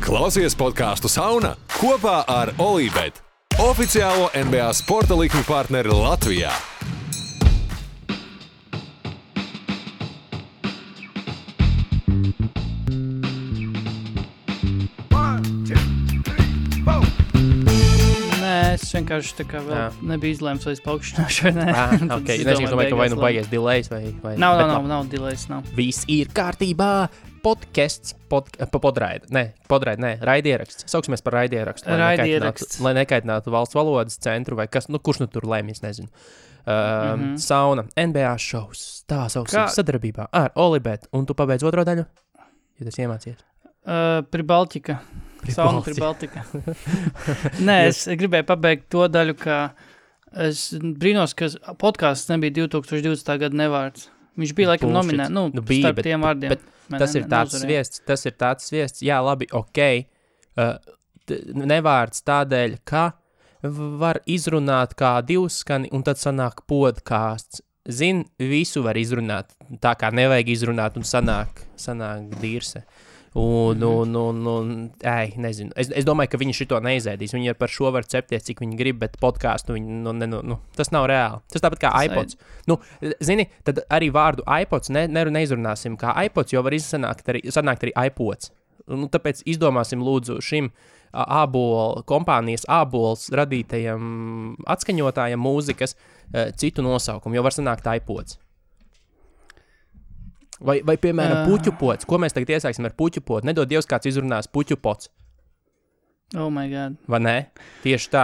Klausies podcastu Sauna kopā ar Olībet, oficiālo NBA sporta likmi partneri Latvijā. Es vienkārši tā kā vēl nebija izlēms, vai es paukšķināšu vai nē. Okay. Es domāju, ka vai nu baies delays vai... Nav delays, nav. Viss ir kārtībā. Podcasts, raidieraksts. Sauksimies par raidierakstu. Lai nekaitinātu valsts valodas centru vai kas, kurš tur lēmj, es nezinu. Sauna, NBA šovs, tā sauksim sadarbībā ar Olibet. Un tu pabeidz otro daļu, ja tas iemācies. Pribaltika. Sauna Pribaltika. Nē, es gribēju pabeigt to daļu, ka es brīnos, ka podcasts nebija 2020. Gada nevārds. Viņš bija laikam nominēts, starp tiem vārdiem. Bet tas ir tāds sviests, jā, labi, ok, nevārds tādēļ, ka var izrunāt kā divskani, un tad sanāk podcasts. Zin, visu var izrunāt, tā kā nevajag izrunāt, un sanāk dirse. Nezinu. Es domāju, ka viņi šito neizēdīs. Viņi par šo var cepties, cik viņi grib, bet podcastu viņi, tas nav reāli. Tas tāpat kā iPods. Zini, tad arī vārdu iPods neizrunāsim kā iPods, jo var sanākt arī iPods. Tāpēc izdomāsim lūdzu šim kompānijas ābols radītajam atskaņotājam mūzikas citu nosaukumu, jo var sanākt iPods. Vai piemēram, puķupots. Ko mēs tagad iesāksim ar puķupotu? Nedod Dievs, kāds izrunās puķupots. Oh my God. Vai ne? Tieši tā.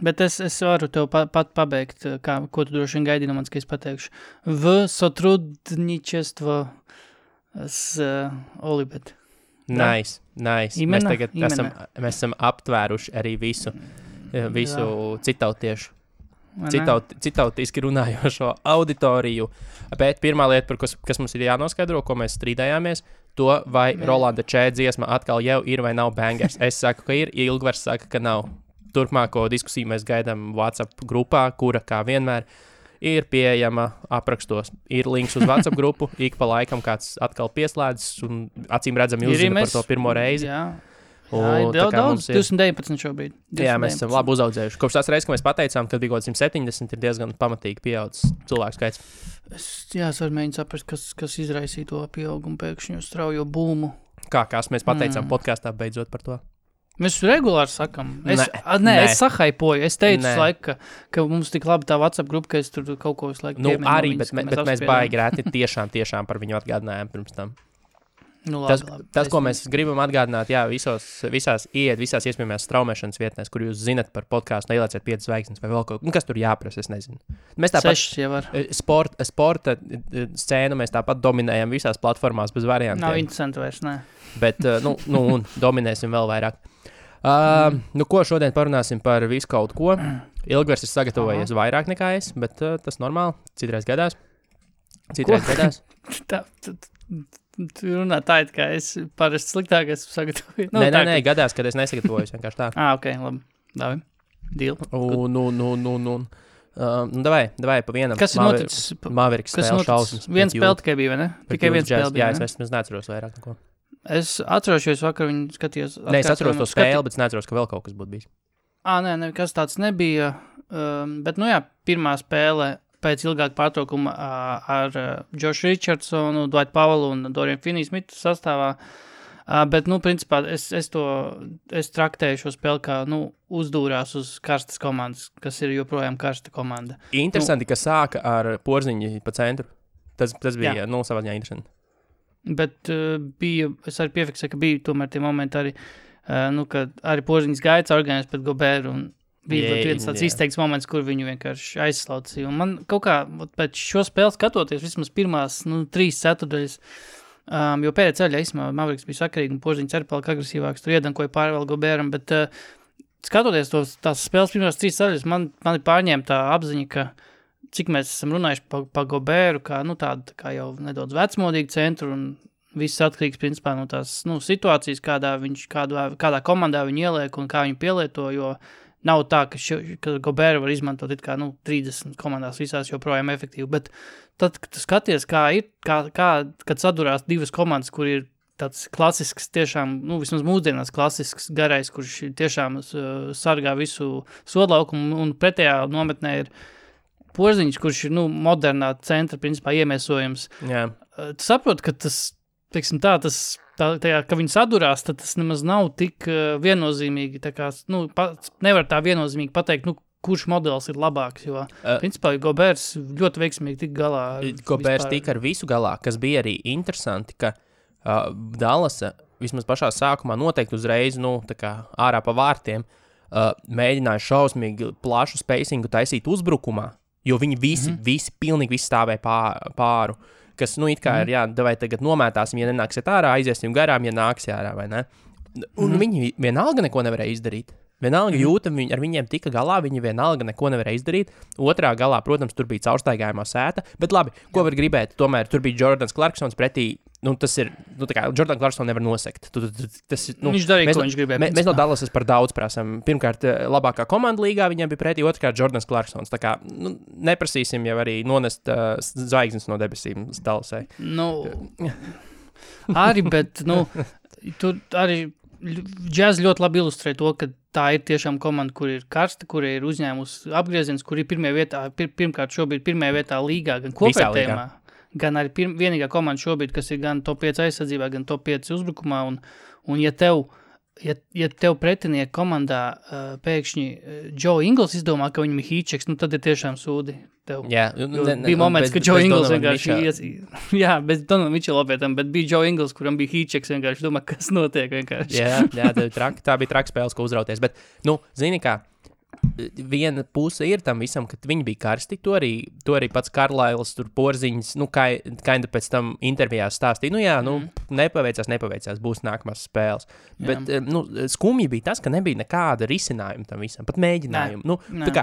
Bet es varu tev pat pabeigt, ko tu droši vien gaidi no manis, ka es pateikšu. V sotrudničestvo s Olibet. Nice. Mēs tagad esam aptvēruši arī visu citautiešu. Citautiski runājošo auditoriju, bet pirmā lieta, kas mums ir jānoskaidro, ko mēs strīdējāmies, to vai Rolanda Čē dziesma atkal jau ir vai nav bangers. Es saku, ka ir, Ilgvars saka, ka nav. Turpmāko diskusiju mēs gaidām WhatsApp grupā, kura, kā vienmēr, ir pieejama aprakstos. Ir links uz WhatsApp grupu, ik pa laikam kāds atkal pieslēdzas un acīm redzami uzzina par to pirmo reizi. Jā. Jā, daudz, 219 šobrīd. 219. Jā, mēs esam labi uzaudzējuši. Kopš tās reizes, ka mēs pateicām, kad bija kaut 170, ir diezgan pamatīgi pieaudzis cilvēku skaits. Es varu mēģināt saprast, kas izraisīja to pieaugumu pēkšņu straujo būmu. Kas mēs pateicām podkastā beidzot par to? Mēs regulāri sakam. Es sahaipoju. Es teicu laiku, ka mums tik labi tā WhatsApp grupa, ka es tur kaut ko visu laiku arī, bet mēs baigi rēti tiešām par viņu atgādinājām pirms tam. Tas, ko mēs gribam atgādināt, jā, visās iespējamās straumēšanas vietnēs, kur jūs zinat par podcastu, neielieciet 5 zvaigznes vai vēl kaut ko, kas tur jāprasa, es nezinu. Mēs tāpat 6 jau var. Sporta scēnu mēs tāpat dominējam visās platformās bez variantiem. Nav interesanti vairs, nē. Bet, un dominēsim vēl vairāk. Ko šodien parunāsim par visu kaut ko. Ilgvars ir sagatavojies vairāk nekā es, bet tas normāli, citreiz gadās. Tu runā tā, kā es parasti sliktāk esmu sagatavojis. Nē, gadās, kad es nesagatavojos, vienkārši tā. Ok, labi. Davi. Deal. Davai pa vienam. Kas ir noticis? Maveriks spēle šausmas. Viens spēle tikai bija, vai ne? Tikai viens spēle bija, jā, es neatceros vairāk neko. Es atceros, jo es vakar viņu skatījos. Nē, es atceros to spēli, bet es neatceros, ka vēl kaut kas būtu bijis. Nē, kas tāds nebija. Bet, pirmā spēle pēc ilgāka pārtraukuma ar Jošu Richardsonu, Dwight Powellu un Dorian Finney-Smithu sastāvā. Bet, principā, es traktēju šo spēli kā, uzdūrās uz karstas komandas, kas ir joprojām karsta komanda. Interesanti, ka sāka ar Porziņu pa centru. Tas bija, savā ziņā interesanti. Bet es arī piefiksēju, ka bija tomēr tie momenti arī, kad arī Porziņas gaits organizēs pret Goberu un bija viens tāds izteikts moments, kur viņu vienkārši aizslaucīja. Un man kaut kā pēc šo spēli skatoties, vismaz pirmās 3 ceturdaļas, jo pēdējā ceļā īstenībā Maveriks bija sakarīgi un Porziņš arī palika agresīvāks, tur iedankoja pāri vēl Goberam, bet skatoties tās spēles pirmās 3 ceļas, man ir pārņēma tā apziņa, ka cik mēs esam runājuši pa Goberu, kā, tādu kā jau nedaudz vecmodīgu centru un viss atkarīgs, principā, no tās situācijas, kādā komandā viņi ieliek un kā viņi pielieto, jo nav tā, ka Goberu var izmantot 30 komandās visās joprojām efektīvi, bet tad, kad tu skaties, kā ir, kad sadurās divas komandas, kur ir tāds klasisks, tiešām, vismaz mūsdienās klasisks garais, kurš tiešām sargā visu sodlaukumu, un pretējā nometnē ir Porziņš, kurš ir, modernā centra, principā, iemiesojums. Jā. Tu saproti, ka tas, teiksim tā, ka viņi sadurās, tad tas nemaz nav tik viennozīmīgi, tā kā, nevar tā viennozīmīgi pateikt, kurš modelis ir labāks, jo, principā, Gobers ļoti veiksmīgi tika galā. Gobers tika ar visu galā, kas bija arī interesanti, ka Dallasa vismaz pašā sākumā noteikti uzreiz, tā kā ārā pa vārtiem, mēģināja šausmīgi plašu spacingu taisīt uzbrukumā, jo viņi visi pilnīgi visi stāvēja pāru, kas, it kā ir, davai tagad nomētāsim, ja nenāksiet ārā, aiziesim garām, ja nāksi ārā, vai ne? Un viņi vienalga neko nevarēja izdarīt. Vienalga jūta, ar viņiem tika galā, viņi vienalga neko nevarēja izdarīt. Otrā galā, protams, tur bija caurstaigājumā sēta, bet labi, ko var gribēt? Tomēr tur bija Jordans Clarksons pretī, tas ir, tā kā Jordan Clarkson nevar nosekt. Viņš darīja, ko viņš gribēja. Mēs no Dallasas par daudz prasam. Pirmkārt, labākā komanda līgā viņiem bija pretī, otrkārt Jordans Clarksons. Tā kā, neprasīsim jau arī nonest zvaigznes no debesīm Dallasai. Arī, bet, tur arī Jazz ļoti labi ilustrē to, ka tā ir tiešām komanda, kur ir karsta, kur ir uzņēmusi apgrieziens, kur ir pirmkārt šobrīd pirmajā vietā līgā, gan kopējumā, gan arī vienīgā komanda šobrīd, kas ir gan top 5 aizsardzībā, gan top 5 uzbrukumā, un ja tev pretinieki komandā pēkšņi Joe Ingles izdomā, ka viņam ir hīčeks, tad ir tiešām sūdi tev. Jā, bija moments, ka Joe Ingles vienkārši bez Donovan Mitchella opētam, bet bija Joe Ingles, kuram bija hīčeks, vienkārši domā, kas notiek vienkārši. Tā bija traka spēles, ko uzrauties, bet, zini kā, viena puse ir tam visam, ka viņi bija karsti, to arī pats Karlails, tur Porziņš, kinda pēc tam intervijās stāstīja, nepaveicās, būs nākamās spēles. Bet, skumji bija tas, ka nebija nekāda risinājuma tam visam, pat mēģinājumu. Tā kā,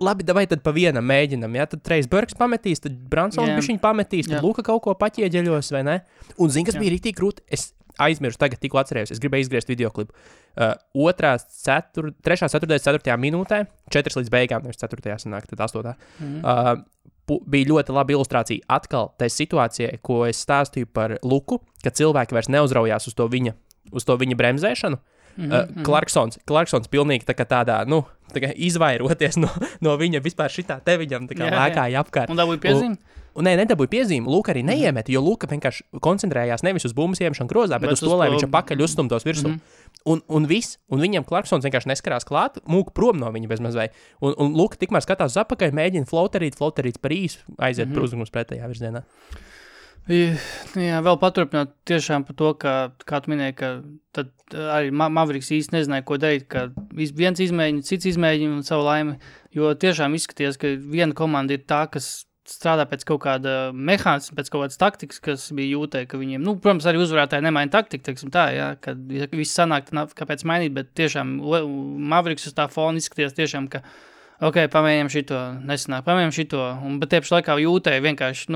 labi, davai tad pa vienam mēģinam, tad Trejs Burks pametīs, tad Bransons bišķiņ pametīs, tad Luka kaut ko paķieģeļos, vai ne? Un zini, kas bija rītīgi krūti? Es aizmirsu tagad, tikko atcerējos, es gribēju izgriezt videoklipu. 3.4. minūtē, 4 līdz beigām, nevis 4. sanāk, tad 8. Bija ļoti laba ilustrācija atkal tai situācijai, ko es stāstīju par Luku, ka cilvēki vairs neuzraujās uz to viņa bremzēšanu. Clarksons pilnīgi tā kā tādā, tā kā izvairoties no viņa vispār šitā te viņam tā kā lēkāja apkārt. Un dabūja piezīmi? Nedabūja piezīmi, Luka arī neiemeta, jo Luka vienkārši koncentrējās nevis uz bumbas iemešanu grozā, bet uz to, lai viņš pakaļ uzstumtos virsū. Un viņam Clarksons vienkārši neskarās klāt, mūk prom no viņa bezmazvai. Un Luka tikmēr skatās uz apakaļ, mēģina floterīt par īsu, aiziet par uzbrukums pretējā virzienā. Jā, vēl paturpināt tiešām par to, kā tu minēji, ka tad arī Mavericks īsti nezināja, ko darīt, ka viens izmēģina, cits izmēģina un savu laimi, jo tiešām izskaties, ka viena komanda ir tā, kas strādā pēc kaut kāda mehānisma, pēc kaut kādas taktikas, kas bija jūtē, ka viņiem, protams, arī uzvarētāji nemaina taktiku, teiksim tā, kad viss sanāk, kāpēc mainīt, bet tiešām Mavericks uz tā fona izskaties tiešām, ka pamēģinām šito, nesanāk, pamēģinām šito, bet tieši laikā jūtēji vienkārši,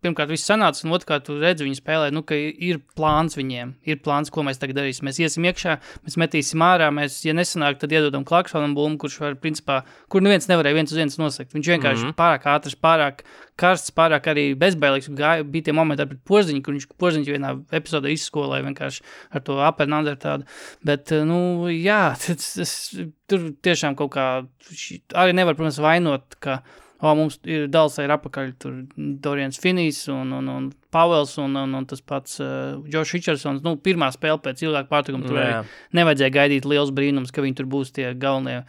pirmkārt viss sanāca, un otrkārt tu redzi viņu spēlē, ka ir plāns viņiem, ir plāns, ko mēs tagad darīsim. Mēs iesim iekšā, mēs metīsim ārā, ja nesanāk, tad iedodam Clarksonam bumbu, kurš var, principā, kur neviens nevarēja viens uz viens nosakt. Viņš vienkārši pārāk ātrs, pārāk karsts, pārāk arī bezbailīgs, bija tie momenti pret Porziņu, kur viņš Porziņu vienā epizodē izskolēja vienkārši ar to upper and under tādu, bet, tur tiešām kaut kā, arī nevar, protams, vainot, ka mums ir Dallasā ir apakaļ tur Dorians Finnijs un Pavels un tas pats Josh Richardsons. Pirmā spēle pēc ilgāka pārtraukuma tur arī nevajadzēja gaidīt liels brīnums, ka viņi tur būs tie galvenie,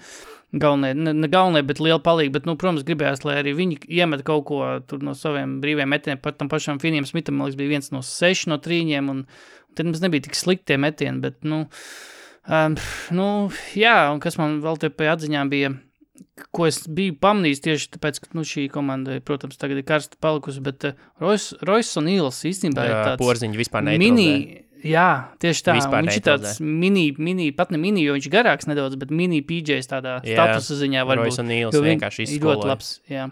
ne galvenie, bet liela palīga, bet, protams, gribējās, lai arī viņi iemet kaut ko tur no saviem brīviem metieniem, pat tam pašam Finnijam Smitham, man liekas, bija 1 no 6 no 3, un tad mums nebija tik slikti tie metieni, bet, un kas man vēl te pie atziņām bija, ko es biju pamanījis tieši tāpēc, ka šī komanda, protams, tagad ir karsta palikusi, bet Royce O'Neals īstenībā ir tāds Porziņš vispār neutralizē. Jā, tieši tā. Vispār viņš ir tāds pat ne mini, jo viņš garāks nedaudz, bet mini PJs tādā statusa ziņā varbūt. Royce O'Neals vienkārši izskoloja. Ļoti labs, jā.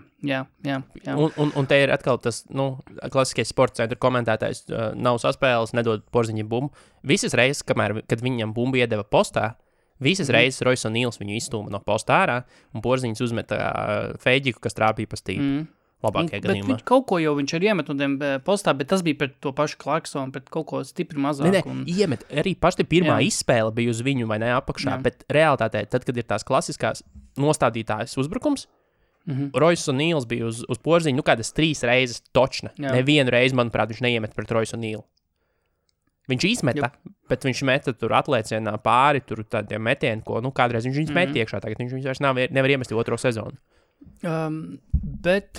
Un te ir atkal tas, klasiskais sporta centra komentētājs nav saspēles, nedod Porziņam bumbu. Visas reizes, kad viņam bumbu iedeva postā, visas reizes Royce O'Neals viņu izstūma no posta ārā, un Porziņš uzmeta feģiku, kas trāpīja pa stīpu. labākajā gadījumā. Bet kaut ko jau viņš arī iemet no tiem postā, bet tas bija pret to pašu Clarksonu, pret kaut ko stipri mazāk. Iemet. Arī paši pirmā izspēle bija uz viņu vai ne apakšā, bet realitātē, tad, kad ir tās klasiskās nostādītājas uzbrukums, Royce O'Neals bija uz porziņu, kādas 3 reizes točna. Nevienu reizi, manuprāt, viņš neiemet pret Royce O'Neal. Viņš izmeta, bet viņš meta tur atliecienā pāri, tur tādiem metieni, ko, kādreiz viņš met iekšā, tagad viņš vairs nevar iemest otro sezonu. Bet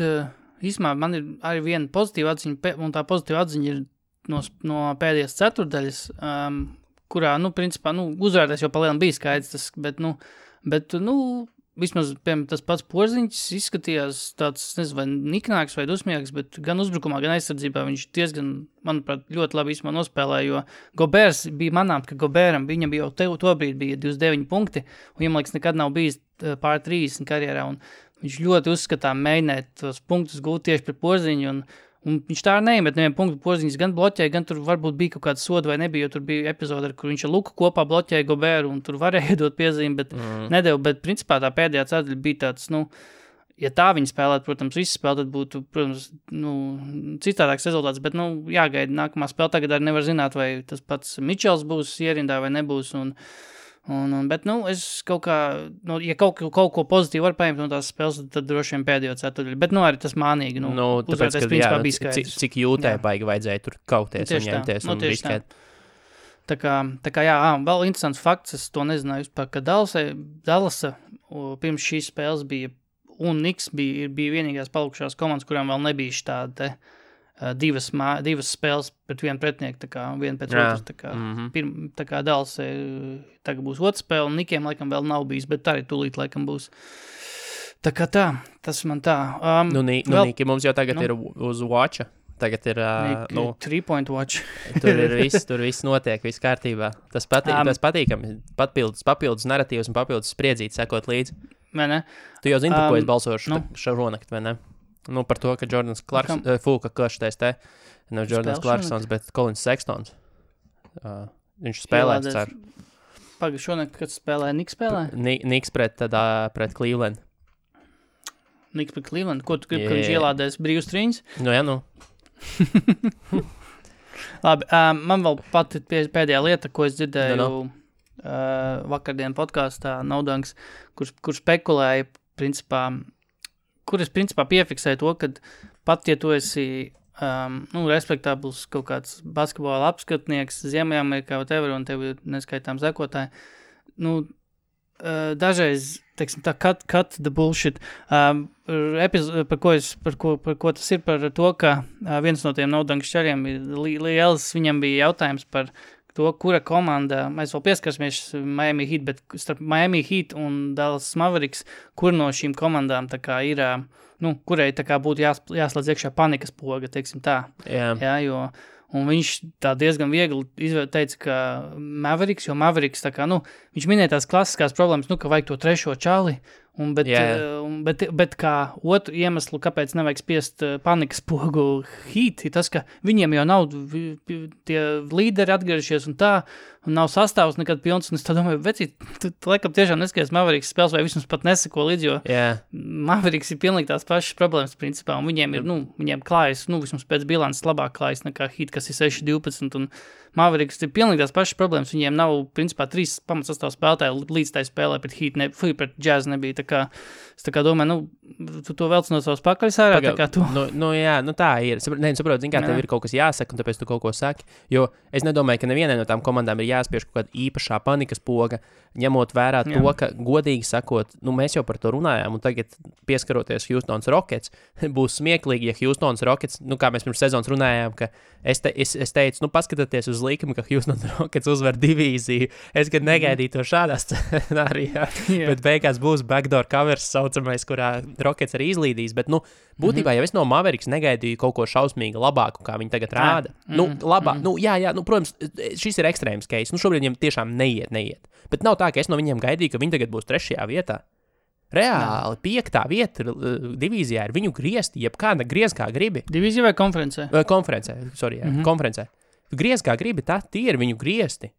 īsumā man ir arī viena pozitīva atziņa, un tā pozitīva atziņa ir no pēdējās ceturdaļas, kurā, principā, uzvērties jau palielam bija skaidrs, bet vismaz, piemēram, tas pats Porziņš izskatījās tāds, nezinu, vai niknāks vai dusmīgs, bet gan uzbrukumā, gan aizsardzībā viņš diezgan, manuprāt, ļoti labi īsumā nospēlēja, jo Gobērs bija manām, ka Gobēram viņam bija jau tobrīd bija 29 punkti, un viņam, liekas, nekad nav bijis pār 30 karjerā, un viņš ļoti uzskatām mēģināt tos punktus gūt tieši pret Porziņu, un viņš tā neiemet nevienu punktu. Porziņš gan bloķēja, gan tur varbūt bija kaut kāda soda vai nebija, jo tur bija epizode, kur viņš ar Luku kopā bloķēja Gobēru, un tur varēja iedot piezīmi, bet nedeva. Bet principā tā pēdējā ceturdaļa bija tāds, ja tā viņi spēlētu, protams, visi spēlē, tad būtu, protams, citādāks rezultāts, bet, jāgaida nākamā spēle. Tagad arī nevar zināt, vai tas pats Mičels būs ierindā vai nebūs, bet, es kaut kā, ja kaut ko pozitīvu var paņemt no tās spēles, tad droši vien pēdējo ceturdaļu. Bet, arī tas mānīgi, tāpēc, ka, principā bija skaidrs. Cik jūtē baigi vajadzēja tur kauties un ņemties un riskēt. Tā kā, vēl interesants fakts, es to nezināju vispār, ka Dallasa pirms šīs spēles bija, un Knicks bija vienīgās palikušās komandas, kurām vēl nebija štāda divas spēles pret vienu pretinieku, tā kā viena pēc otras, tā kā Dallas tagad būs otra spēle, un Knickiem laikam vēl nav bijis, bet arī tūlīt laikam būs. Tā kā tas man tā. Niki mums jau tagad ir uz watcha, tagad ir, 3-point watch. tur viss notiek, viss kārtībā. Tas patīkami, papildus narratīvs un papildus spriedzīti sekot līdzi. Vai ne? Tu jau zini, par ko es balsošu šaronakt, vai ne? Par to, ka Jordans Clarksons, Jordans Clarksons, bet Collins Sextons. Viņš spēlēs, ceru. Šonakt, kad spēlēja, Knicks spēlēja? Knicks pret Cleveland. Knicks pret Cleveland? Ko tu gribi, ka viņš ielādēs brīvus trīņus? Labi, man vēl pati pēdējā lieta, ko es dzirdēju vakardien podkāstā Naudanks, kur spekulēja, principā, kur es principā piefiksēju to, ka pat, ja tu esi respektabls kaut kāds basketbola apskatnieks Ziemeļamerikā, whatever, un tev ir neskaitām sekotāji, dažreiz, teiksim tā, cut the bullshit, par ko tas ir, par to, ka viens no tiem Naudanks šariem ir liels, viņam bija jautājums par to, kura komanda, mēs vēl pieskarsimies Miami Heat, bet starp Miami Heat un Dallas Mavericks, kur no šīm komandām tā kā ir, kurai tā kā būtu jāslēdz iekšā panikas poga, teiksim tā. Jā, jo, un viņš tā diezgan viegli teica, ka Mavericks, jo Mavericks tā kā, viņš minēja tās klasiskās problēmas, ka vajag to trešo čali, bet kā otru iemeslu, kāpēc nevajag spiest panikas pogu Heat, ir tas, ka viņiem jau nav tie līderi atgriežies un tā, un nav sastāvs nekad pilns, un es tā domāju, vecīt, tu laikam tiešām neskaties Mavericks spēles, vai vismaz pat neseko līdz, jo Mavericks ir pilnīgi tās pašas problēmas principā, un viņiem ir, viņiem klājas, vismaz pēc bilances labāk klājas nekā Heat, kas ir 6-12, un Mavericks ir pilnīgi tās pašas problēmas, viņiem nav, principā, 3 pamatsastāvu spēlētāji līdz tai spēlē pret Heat, pret Jazz nebija, tā kā, es tā kā domāju, tu to velc no savas pakaļas ārā, tā kā tu. Tā ir. Saprot, zin kā, tev ir kaut kas jāsaka, un tāpēc tu kaut ko saki, jo es nedomāju, ka nevienai no tām komandām ir jāspiež kaut kāda īpašā panikas poga, ņemot vērā to, ka, godīgi sakot, mēs jau par to runājām, un tagad pieskaroties Houstons Rockets, būs smieklīgi, ja Houstons Rockets, kā mēs pirms sezonas runājām, ka es teicu, paskatieties uz līkumu, ka Houstons Rockets uzvar divīziju, es gan negaidīju to šādā scenārijā, bet beigās būs backdoor covers saucamais, kurā Rockets arī izlīdīs, bet, būtībā jau es no Mavericks negaidīju kaut ko šausmīgi labāku, kā viņi tagad rāda. Protams, šis ir ekstrēms case, šobrīd viņiem tiešām neiet, bet nav tā, ka es no viņiem gaidīju, ka viņi tagad būs 3. vietā. Reāli 5. vieta divīzijā ir viņu griezti, jebkāda griez kā gribi. Divīzija vai konferencē? Konferencē, konferencē. Griez kā gribi, tie ir viņu griezti.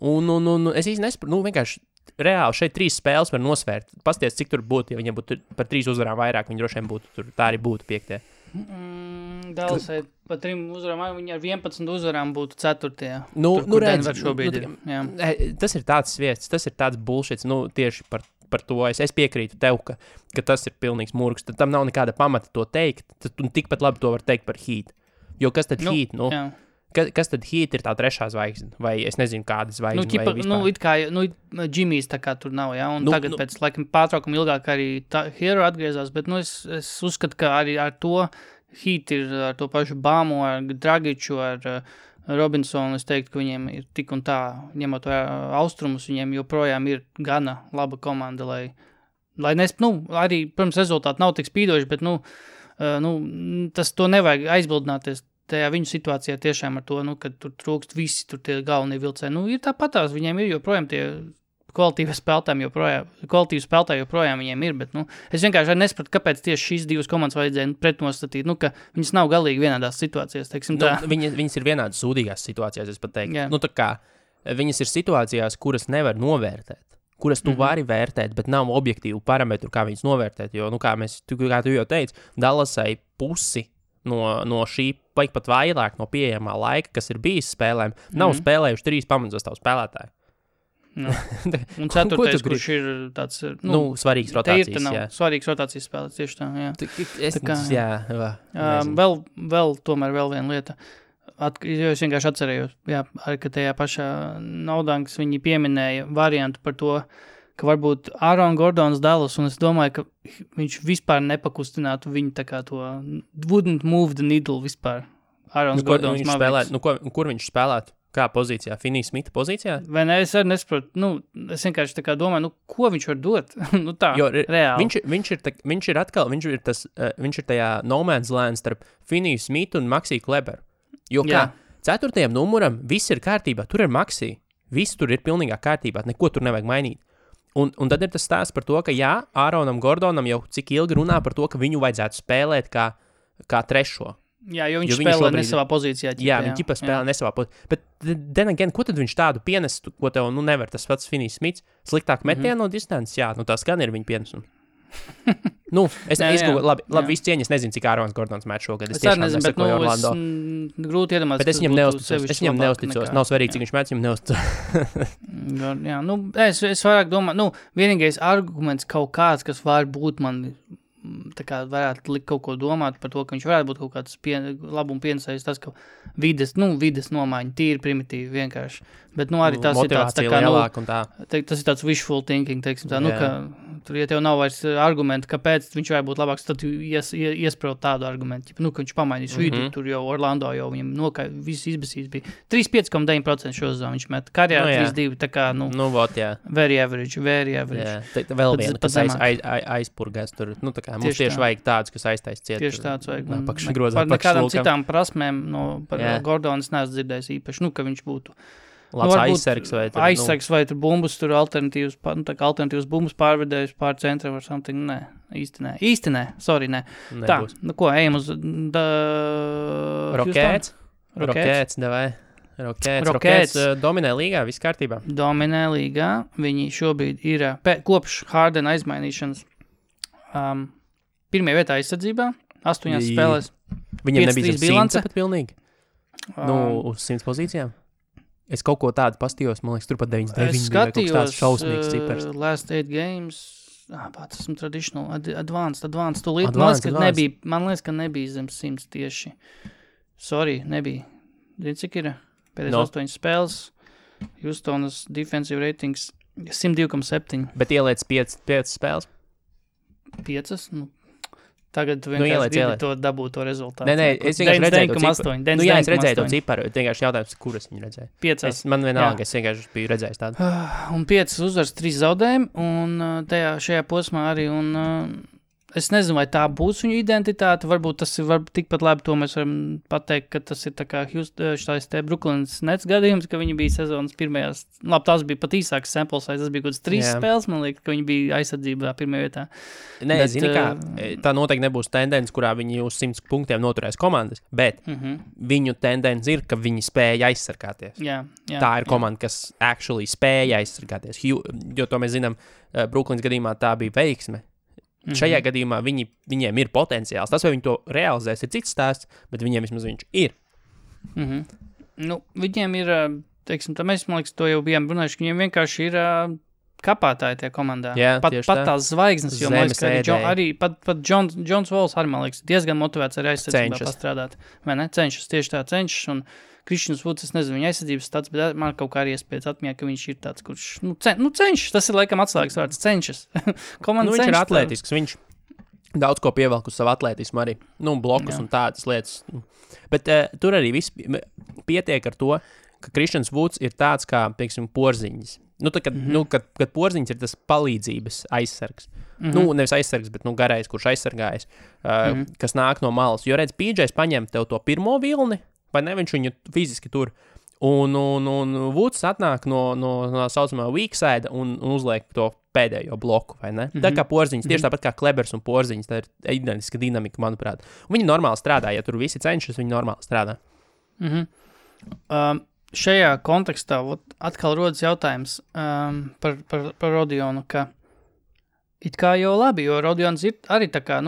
Un es īsti nesaprotu, vienkārši reāli šeit 3 spēles var nosvērt. Pasties, cik tur būtu, ja viņiem būtu par 3 uzvarām vairāk, viņi droši vien būtu tur, tā arī būtu 5. Dallasai par 3 uzvarām, viņi ar 11 uzvarām būtu 4. Nu, redz, šobrīd ir. Jā. Tas ir tāds vietas, tas ir tāds bullshits, tieši par to es piekrītu tev, ka tas ir pilnīgs murgs, tad tam nav nekāda pamata to teikt, tad tikpat labi to var teikt par Heat. Jo kas tad Heat, kas tad Heat ir tā 3. zvaigzne, vai es nezinu, kāda zvaigzne, vai vispār? It kā, Jimmy's tā kā tur nav, un tagad pēc laikam pārtraukuma ilgāk arī Hero atgriezās, bet, es uzskatu, ka arī ar to Heat ir ar to pašu Bāmu, ar Dragiču, ar Robinsonu, es teiktu, ka viņiem ir tik un tā, ņemot austrumus, viņiem joprojām ir gana laba komanda, lai arī, protams, rezultāti nav tik spīdoši, bet, to nevajag aizbildināties tajā viņu situācijā tiešām ar to, kad tur trūkst visi, tur tie galvenie vilcēji. Ir tāpatās, viņiem ir joprojām tie kvalitīvi spēlētāji joprojām viņiem ir, bet, es vienkārši nesapratu, kāpēc tieši šīs 2 komandas vajadzēja pretnostatīt, ka viņas nav galīgi vienādās situācijās, teiksim tā. Viņas ir vienādas sūdīgās situācijās, es pat teiktu. Tā kā viņas ir situācijās, kuras nevar novērtēt, kuras tu vari vērtēt, bet nav objektīvu parametru, kā viņas novērtēt, jo, kā tu jau teici, Dallasai pusi no šī, pat vairāk no pieejamā laika, kas ir bijis spēlēm, nav spēlējuši 3 pamatsastāvu spēlētāji. Un 4. kurš ir tāds, svarīgs rotācijas, svarīgs rotācijas spēlēs, tieši tā, Vēl viena lieta, jo es vienkārši atcerējos, ka tajā pašā Naudankas viņi pieminēja variantu par to, ka varbūt Aaron Gordons Dallas, un es domāju, ka viņš vispār nepakustinātu viņu tā kā to wouldn't move the needle vispār. Aaron Gordons Mavericks. Kur viņš spēlētu? Kā pozīcijā? Finney Smitha pozīcijā? Vai ne? Es arī nesaprotu. Es vienkārši tā kā domāju, ko viņš var dot? Reāli. Viņš ir tajā no man's land starp Finney Smithu un Maxi Kleberu. Jo kā 4. numuram viss ir kārtībā. Tur ir Maxi. Viss tur ir pilnīgā kārtībā. Neko tur nevajag mainīt. Un tad ir tas stāsts par to, ka Aaronam Gordonam jau cik ilgi runā par to, ka viņu vajadzētu spēlēt kā 3. Jā, jo viņš spēlē nesavā pozīcijā. Viņš ķipa spēlē nesavā pozīcijā. Bet, then again, ko tad viņš tādu pienestu, ko tev nevar tas pats Finney Smiths? Sliktāk metienu no distances? Jā, tas gan ir viņa pienesums. Es labi, visu cieņu, es nezinu, cik Ārons Gordons met šogad. Es tiešām nesakoju Orlando. Grūti iedomāties. Bet es viņam neusticos. Nav svarīgi, cik viņš met, viņam neusticos. Es vairāk domāju, vienīgais arguments kaut kāds, kas var būt man tā kā varētu likt kaut ko domāt par to, ka viņš varētu būt kaut kāds labuma pienesējs, tas, ka vides nomaiņa, tīri primitīvi vienkārši. Bet, arī tas ir tāds, tā kā, tas ir tāds wishful thinking, teiksim tā, ka tur, ja tev nav vairs argumenti, kāpēc viņš varētu būt labāks, tad tu iespraut tādu argumentu, ka viņš pamainīs vidu, tur jau Orlando jau viņam viss izbasīs bija. 35,9% šo zonu viņš met, karjerā 3-2, tā kā, very average. Vēl viena, kas aizpurgās tur, tā kā mums tieši vajag tādus, kas aiztais ciet. Tieši tāds vajag. Par nekādām citām prasmēm par Gordonas neesmu dzirdējis īpaši, ka viņš būtu labs aizsargs vai tur. Aizsargs vai tur bumbus, tur alternatīvas bumbus pārvedējus pār centra vai something. Nē, īsti nē. Sorry, nē. Tā, ko, ejam uz Rockets, davai. Rockets dominē līgā, viss kārtībā. Dominē līgā, viņi šobrīd ir kopš Hardena aizmainīšanas pirmajā vietā aizsardzībā, 8 spēlēs. Viņam nebija 100 pat pilnīgi? Uz 100 pozīcijām? Es kaut ko tādu pastījos, man liekas, tur pat 99 bija kaut tāds šausmīgs cipars. Last 8 games, tas esmu traditional, advanced, tūlīt. Man liekas, ka nebija zem 100 tieši. Sorry, nebija. Zini, cik ir? Pēdējais 8 spēles, Houstonas defensive ratings 102,7. Bet ieliec 5 spēles? 5? Tagad tu vienkārši gribi to dabūt to rezultātu. Nē, es vienkārši redzēju to ciparu. Es redzēju to ciparu, vienkārši jautājums, kuras viņi redzēja. 5. Man vienalga, es vienkārši biju redzējis tādu. Un 5 uzvars, 3 zaudējumi, un šajā posmā arī, un es nezinu, vai tā būs viņa identitāte, varbūt tas ir tikpat labi, to mēs varam pateikt, ka tas ir tā kā štais te Brooklyns Nets gadījums, ka viņi bija sezonas pirmajās, labi, tās bija pat īsāks sample size, tas bija kaut kāds 3 spēles, man liekas, ka viņi bija aizsardzībā pirmajā vietā. Nē, zini kā, tā noteikti nebūs tendence, kurā viņi uz 100 punktiem noturēs komandas, bet viņu tendence ir, ka viņi spēja aizsargāties. Tā ir komanda, kas actually spēja aizsargāties, jo to mēs zinām, Brooklyns gadījumā tā bija veiksme. Šajā gadījumā viņiem ir potenciāls. Tas, vai viņi to realizēs, ir cits stāsts, bet viņiem vismaz viņš ir. Nu, viņiem ir, teiksim, mēs, man liekas, to jau bijām runājuši, ka viņiem vienkārši ir kapātāji tie komandā. Jā, pat tās zvaigznes, jo, man liekas, ka arī pat Johns Walls arī, man liekas, diezgan motivēts arī aizsardzībā pastrādāt. Vai ne? Cenšas, tieši tā cenšas, un Krišņus Vuds, es nezinu, viņa aizsardzības stats, bet man kaut kā arī iespējas atmiņā, ka viņš ir tāds, kurš, cenšas, tas ir laikam atslēgas vārds, cenšas. Viņš ir atletisks, viņš daudz ko pievelk uz savu atletismu arī, blokus un tādas lietas. Bet tur arī viss pietiek ar to, ka Krišņus Vuds ir tāds kā, pieksim, Porziņģis. Kad Porziņģis ir tas palīdzības aizsargs. Nevis aizsargs, bet garais, kurš aizsargājas, kas nāk no malas. Jo redz, PJs paņem tev to pirmo vilni, vai ne, viņš viņu fiziski tur, un Vuds atnāk no saucamā weak side un uzliek to pēdējo bloku, vai ne? Tā kā Porziņš, tieši tāpat kā Klebers un Porziņš, tā ir identiska dinamika, manuprāt. Un viņi normāli strādā, ja tur visi cenšas, viņi normāli strādā. Šajā kontekstā atkal rodas jautājums par Rodionu, ka it kā jau labi, jo Rodions ir arī tā kā,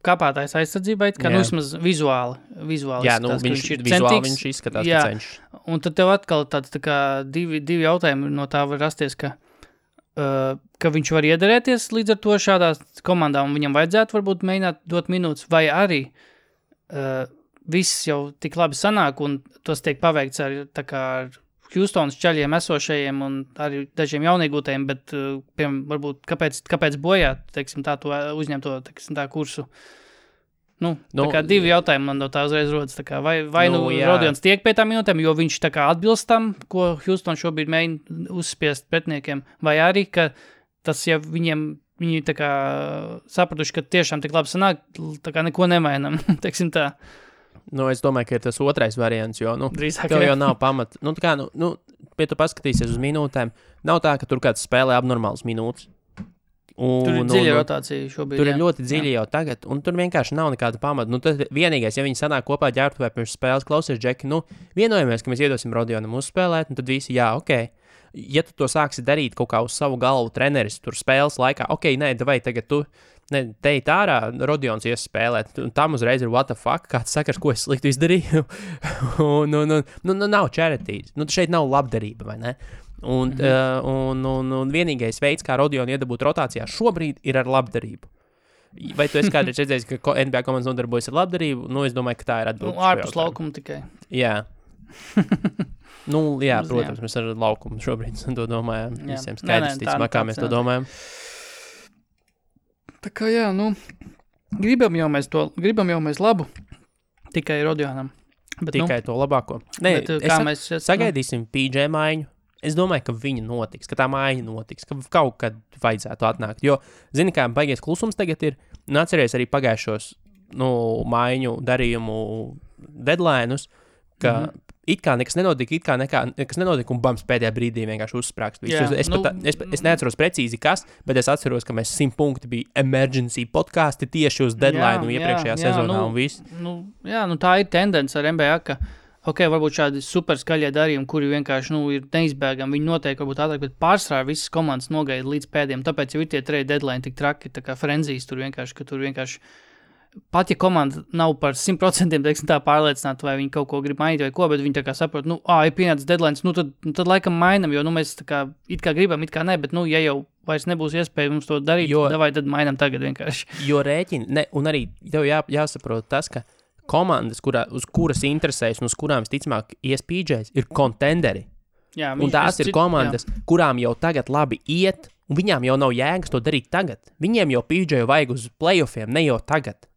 kāpātājs aizsardzībai, kā vismaz vizuāli jā, viņš ir centīgs. Viņš izskatās, ka cenšas. Un tad tev atkal tāds tā kā divi jautājumi no tā var rasties, ka viņš var iederēties līdz ar to šādās komandām, un viņam vajadzētu varbūt mēģināt dot minūtes, vai arī viss jau tik labi sanāk, un tos tiek paveikts ar Houstonas čaļiem esošajiem un arī dažiem jauniegūtajiem, bet, varbūt, kāpēc bojāt, teiksim, tā to uzņemto, teiksim, tā kursu? Tā kā divi jautājumi man no tā uzreiz rodas, tā kā vai Rodions tiek pie tām minūtēm, jo viņš tā kā atbilst tam, ko Houston šobrīd mēģina uzspiest pretniekiem, vai arī, ka tas, ja viņi tā kā sapratuši, ka tiešām tik labi sanāk, tā kā neko nemainam, teiksim tā. Es domāju, ka ir tas otrais variants, jo, tev jau nav pamata. Pie tu paskatīsies uz minūtēm, nav tā, ka tur kāds spēlē abnormāls minūtes. Tur ir dziļa rotācija šobrīd. Tur ir ļoti dziļi jau tagad, un tur vienkārši nav nekāda pamata. Tad vienīgais, ja viņi sanāk kopā ģērbtuvē pirms spēles, klausies, Džeki, vienojamies, ka mēs iedosim Rodionam uzspēlēt, un tad visi, jā, ok. Ja tu to sāksi darīt kaut kā uz savu galvu treneris tur spēles laikā, ok, vai tagad tu teikt ārā, Rodions ies spēlēt, un tam uzreiz ir what the fuck, kāds sakars, ko es sliktu izdarīju, nav charities, šeit nav labdarība, vai ne? Un vienīgais veids, kā Rodionu iedabūt rotācijā šobrīd, ir ar labdarību. Vai tu esi kādreiz redzējis, ka NBA komandas nodarbojas ar labdarību? Es domāju, ka tā ir atbilde. Ārpus laukuma tikai. Jā. Jā, protams, mēs ar laukumu šobrīd to domājam. Visiem skaidrs, ticamā, kā mēs to domājam. Tā kā jā, gribam jau mēs labu, tikai Rodionam. Tikai to labāko. Sagaidīsim PJ maiņu. Es domāju, ka viņa notiks, ka tā maiņa notiks, ka kaut kad vajadzētu atnākt. Jo, zini, kā baigies klusums tagad ir, atceries arī pagājušos maiņu darījumu deadline'us, ka it kā nekas nenotika, nekas nenotika, un bams pēdējā brīdī vienkārši uzsprākst. Es neatceros precīzi kas, bet es atceros, ka mēs 100 punkti bija emergency podkasti tieši uz deadline iepriekšējā sezonā un viss. Tā ir tendence ar NBA, ka varbūt šādi super skaļie darījumi, kuri vienkārši ir neizbēgami, viņi noteikti varbūt ātrāk, bet pārsvarā visas komandas nogaida līdz pēdējiem, tāpēc jau ir tie trade deadline tik traki, tā kā frenzijas tur vienkārši, pat ja komanda nav par 100% teiksim, tā pārliecināta, vai viņi kaut ko grib mainīt vai ko, bet viņi tā kā saprot, ir pienācis deadlines, tad laikam mainam, jo mēs tā kā it kā gribam, it kā ne, bet ja jau vairs nebūs iespēja mums to darīt, tad mainam tagad vienkārši. Jo rēķini, un arī tev jāsaprot tas, ka komandas, uz kuras interesēs un uz kurām visticamāk ies PJs, ir kontenderi. Un tās ir komandas, kurām jau tagad labi iet, un viņām jau nav jēgas to darīt tagad. Viņiem jau PJ vajag uz playoffiem, ne jau tagad.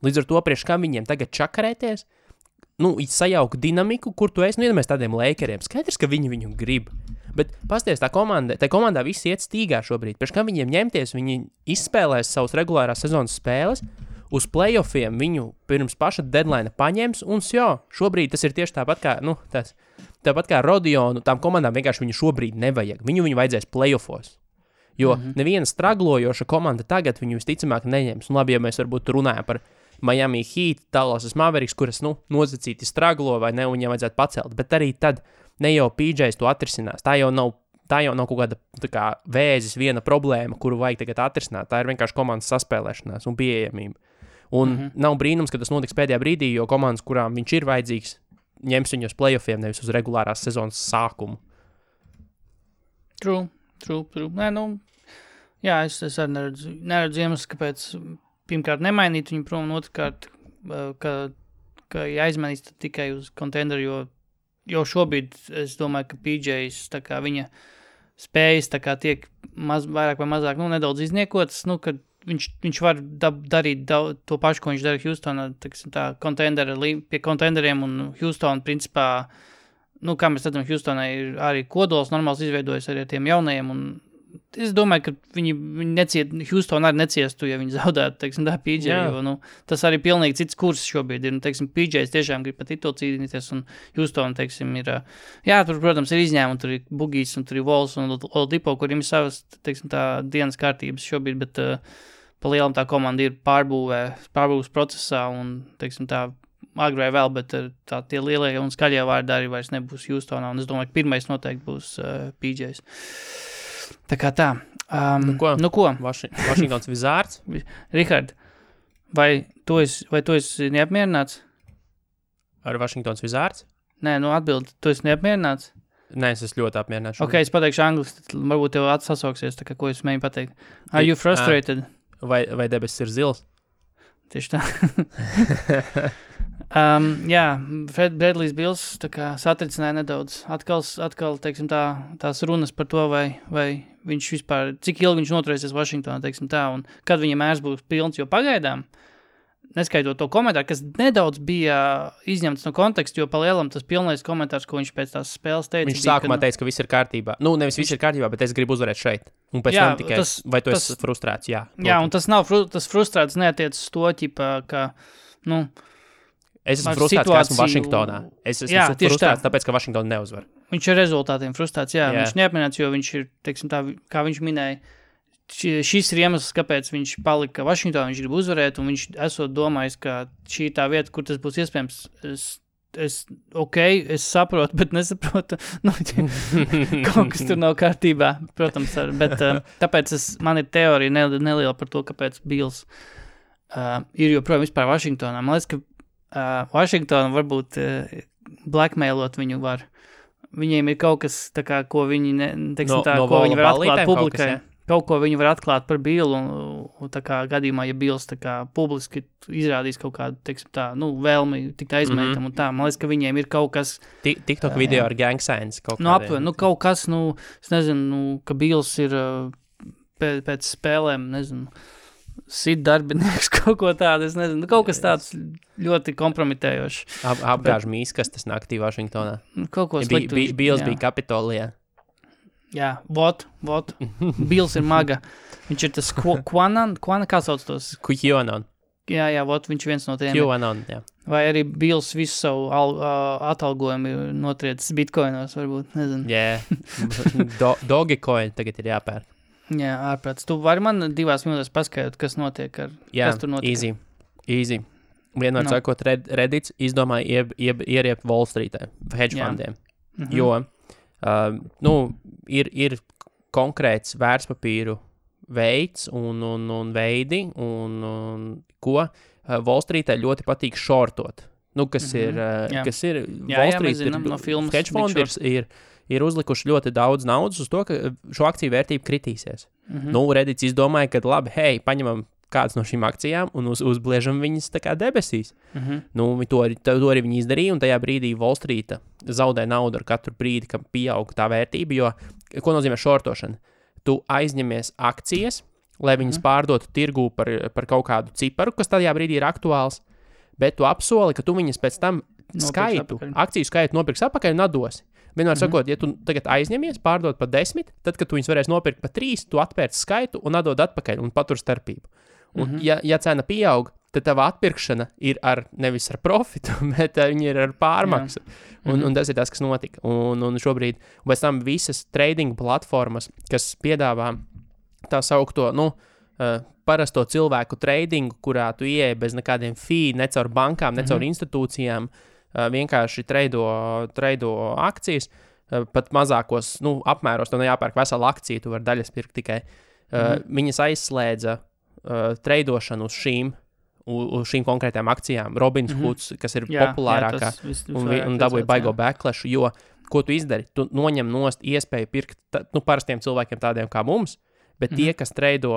Līdz ar to priekš kam viņiem tagad čakarēties, sajaukt dinamiku, kur tu esi, iedomājies tādiem Lakeriem. Skaidrs, ka viņi viņu grib. Bet pasties, tā komandā visi iet stīgā šobrīd. Pēc kam viņiem ņemties, viņi izspēlēs savus regulārās sezonas spēles, uz playoffiem viņu pirms paša deadline paņems, un šobrīd tas ir tieši tāpat kā Rodionu, tām komandām vienkārši viņu šobrīd nevajag. Viņu vajadzēs playoffos. Jo neviena straglojoša komanda tagad viņu visticamāk neņems. Un labi, ja mēs varbūt runājam par Miami Heat, Dallas Mavericks, kuras, nozacīti straglo vai ne, un viņiem vajadzētu pacelt. Bet arī tad ne jau PJs to atrisinās. Tā jau nav kaut kāda tā kā vēzis viena problēma, kuru vajag tagad atrisināt. Tā ir vienkārši komandas saspēlēšanās un pieejamība. Un nav brīnums, ka tas notiks pēdējā brīdī, jo komandas, kurām viņš ir vajadzīgs, ņems viņu uz playoffiem, nevis uz regulārās sezonas sākumu. True. Nē, jā, es arī neredzu iemeslu, kāpēc pirmkārt nemainīt viņu prom, un otrkārt, ka jāizmainīs tikai uz contenderu, jo šobrīd es domāju, ka PJs, tā kā viņa spējas, tā kā tiek vairāk vai mazāk, nedaudz izniekotas, kad viņš var darīt to pašu, ko viņš dara Houstonā, pie contenderiem, un Houston, principā, kā mēs redzam, Houstonai ir arī kodols normāls izveidojas arī ar tiem jaunajiem, un es domāju, ka viņi Houston arī neciestu, ja viņi zaudētu, PJ, jo, tas arī pilnīgi cits kurs šobrīd ir, PJs tiešām grib pat titulu cīnīties, un Houston, ir, tur, protams, ir izņēmumi, tur ir Bugijs, un tur ir Vols, un Oladipo, kuriem ir savas, tā dienas kārtības šobrīd, bet pa lielam tā komanda ir pārbūves procesā, un, tā agrē vēl, bet tie lielie un skaļie vārdi arī vairs nebūs Houstonā, un es domāju, ka pirmais noteikti būs PJs. Tā kā tā. Ko? Vašingtons Wizards? Rihard, vai tu esi neapmierināts? Ar Vašingtons Wizards? Nē, atbildi, tu esi neapmierināts? Nē, es esmu ļoti apmierināts. Ok, es pateikšu angliski, tad varbūt tev atsasauksies, tā kā ko es mēģinu pateikt. Are you frustrated? Vai debesis ir zils? Tieši tā. Fred Bradley's Bills tā kā satricināja nedaudz. Atkal tās runas par to, vai viņš vispār, cik ilgi viņš noturēsies Vašingtonā, un kad viņa mērs būs pilns, jo pagaidām, neskaitot to komentāru, kas nedaudz bija izņemts no konteksta, jo pa lielam tas pilnais komentārs, ko viņš pēc tās spēles teica. Viņš sākumā teica, ka viss ir kārtībā. Nevis viss ir kārtībā, bet es gribu uzvarēt šeit. Un pēc tam tikai, vai tu esi frustrēts? Jā, un tas nav, tas frustrēts neatiec uz to, ka, es esmu frustrēts, ka esmu Vašingtonā. Es esmu frustrēts, tāpēc, ka Vašingtona neuzvar. Viņš ir rezultātiem frustrēts, viņš neapmienāts, jo viņš ir, kā viņš minēja, šis ir iemesls, kāpēc viņš palika Vašingtonā, viņš grib uzvarēt, un viņš esot domājis, ka šī ir tā vieta, kur tas būs iespējams. Es saprotu, bet nesaprotu. Kaut kas tur nav kārtībā, protams, bet tāpēc man ir teorija neliela par to, kāpēc Bills ir joprojām vispār Vašingtonā. Man liekas, ka Vašingtona varbūt blackmailot viņu var. Viņiem ir kaut kas, tā kā, ko viņi, ko viņi var atklāt publikai. Kaut ko viņi var atklāt par Billu, un tā kā gadījumā, ja Bills tā kā publiski izrādīs kaut kādu, vēlmi tikt aizmētam un tā. Man liekas, ka viņiem ir kaut kas... TikTok video ar gang signs kaut kādiem. Kaut kas, es nezinu, ka Bills ir pēc spēlēm, sit darbinieks, kaut ko tādu, es nezinu, kaut kas tāds ļoti kompromitējošs. Apgāž mīskastes naktī Vašingtonā. Kaut ko sliktu. Bills bija Kapitolijā. Jā, vot. Bills ir maga. Viņš ir tas kā sauc tos? QAnon. Jā, vot, viņš viens no tiem. QAnon, jā. Vai arī Bills visu savu atalgojumu ir notriecis bitcoinos, varbūt, nezinu. Jā, Dogecoin tagad ir jāpēr. Jā, ārprāts. Tu vari man 2 minūtēs paskaidrot, kas notiek kas tur notika? Easy. Vienmēr sakot, Reddits izdomāja ieriept Wall Streetē, hedge fundiem, jo ir konkrēts vērtspapīru veids un veidi, un ko Wall Streetē ļoti patīk shortot. Kas ir Wall Street hedge fondi ir uzlikuši ļoti daudz naudas uz to, ka šo akciju vērtība kritīsies. Reddits izdomāja, ka labi, paņemam kādas no šīm akcijām un uzbliežam viņas tā kā debesīs. To arī viņi izdarīja, un tajā brīdī Wall Street zaudē naudu ar katru brīdi, kad pieaug tā vērtība, jo, ko nozīmē shortošana? Tu aizņemies akcijas, lai viņas pārdotu tirgū par kaut kādu ciparu, kas tajā brīdī ir aktuāls, bet tu apsoli, ka tu viņas pēc tam akciju skaitu nopirks atpakaļ un atdosi. Vienmēr sakot, ja tu tagad aizņemies, pārdod par 10, tad, kad tu viņus varēsi nopirkt par 3, tu atpērci skaitu un atdod atpakaļ un patur starpību. Un, ja cena pieaug, tad tava atpirkšana ir nevis ar profitu, bet viņi ir ar pārmaksu. Un tas ir tas, kas notika. Un šobrīd, un pēc tam visas trading platformas, kas piedāvā tā saukto, parasto cilvēku tradingu, kurā tu ieeji bez nekādiem fee, ne caur bankām, ne caur institūcijām, vienkārši traido akcijas, pat mazākos apmēros, tev nejāpērk vesela akcija, tu vari daļas pirkt tikai. Viņas aizslēdza treidošanu uz šīm konkrētām akcijām. Robinhoods, kas ir populārākā, un dabūja baigo backlashu, jo, ko tu izdari? Tu noņem nost iespēju pirkt parastiem cilvēkiem tādiem kā mums, bet tie, kas treido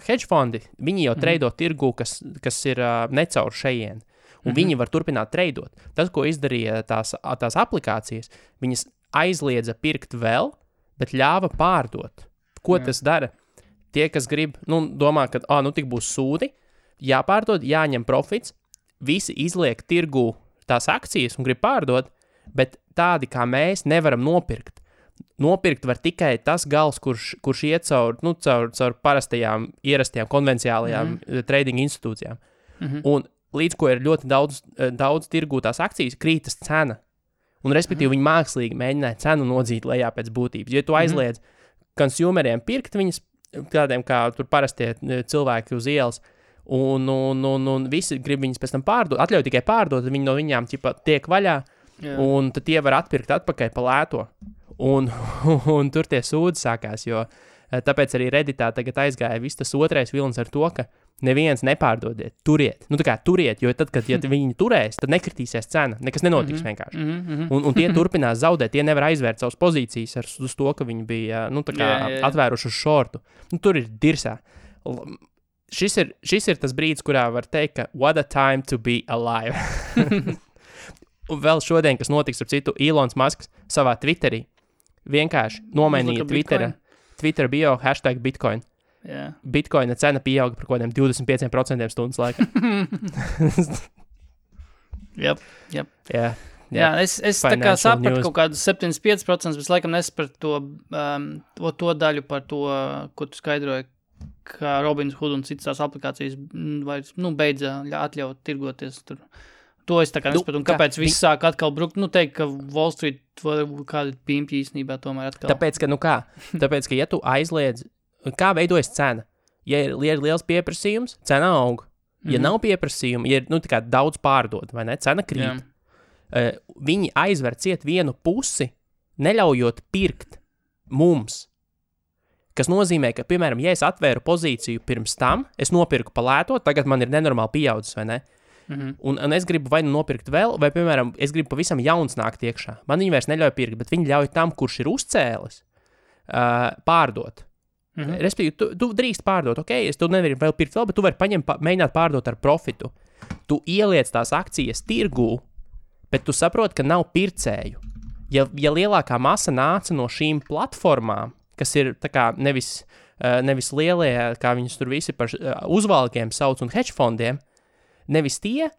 hedge fondi, viņi jau treido tirgu, kas ir necaur šejien. Un viņi var turpināt treidot. Tas, ko izdarīja tās aplikācijas, viņas aizliedza pirkt vēl, bet ļāva pārdot. Ko tas dara? Tie, kas grib, domā, ka tik būs sūdi, jāpārdod, jāņem profits, visi izliek tirgu tās akcijas un grib pārdot, bet tādi kā mēs nevaram nopirkt. Nopirkt var tikai tas gals, kurš iet caur parastajām, ierastajām, konvenciālajām trading institūcijām. Un līdz ko ir ļoti daudz tirgū tās akcijas, krītas cena. Un respektīvi viņi mākslīgi mēģināja cenu nodzīt lejā pēc būtības. Ja tu aizliedz konsumeriem pirkt viņas, tādiem kā tur parastie cilvēki uz ielas, un visi grib viņas pēc tam pārdot, atļauj tikai pārdot, viņi no viņām tiek vaļā, un tad tie var atpirkt atpakaļ pa lēto. Un tur tie sūdi sākās, jo tāpēc arī Redditā tagad aizgāja viss tas otrais vilnis ar to, ka neviens nepārdodiet, turiet. Turiet, jo tad, kad viņi turēs, tad nekritīsies cena, nekas nenotiks vienkārši. Un tie turpinās zaudēt, tie nevar aizvērt savas pozīcijas uz to, ka viņi bija atvēruši uz šortu. Tur ir dirsā. Šis ir tas brīdis, kurā var teikt, ka what a time to be alive. Un vēl šodien, kas notiks ar citu, Elons Musks savā Twitterī vienkārši nomainīja Twitter bio #Bitcoin. Yeah. Bitcoina cena pieauga par kaut kādiem 25% stundas laikā. Yep. Jā, es tā kā sapratu kaut kādus 75%, bet laikam nesapratu to daļu par to, ko tu skaidroji, ka Robinhood un citas tās aplikācijas vairs, beidza atļaut tirgoties tur. To es tā kā nesapratu, un kāpēc viss sāk atkal brukt, teikt, ka Wall Street kādi pīmpji īstenībā tomēr atkal. Tāpēc, ka ja tu aizliedz, kā veidojas cena? Ja ir liels pieprasījums, cena aug. Ja nav pieprasījuma, ja ir tā kā daudz pārdod, vai ne, cena krīt. Viņi aizver ciet vienu pusi, neļaujot pirkt mums. Kas nozīmē, ka, piemēram, ja es atvēru pozīciju pirms tam, es nopirku pa lēto, tagad man ir nenormāli pieaudzis, vai ne? Un es gribu vai nopirkt vēl, vai, piemēram, es gribu pavisam jauns nākt iekšā. Man viņi vairs neļauj pirkt, bet viņi ļauj tam, kurš ir uzcēlis, pārdot. Respektīvi, tu drīkst pārdot, es tu nevari vēl pirkt vēl, bet tu vari mēģināt pārdot ar profitu. Tu ieliec tās akcijas tirgū, bet tu saproti, ka nav pircēju. Ja lielākā masa nāca no šīm platformām, kas ir tā kā nevis lielie, kā viņus tur visi par uzvalkiem sauc un hedge fondiem, nevis tie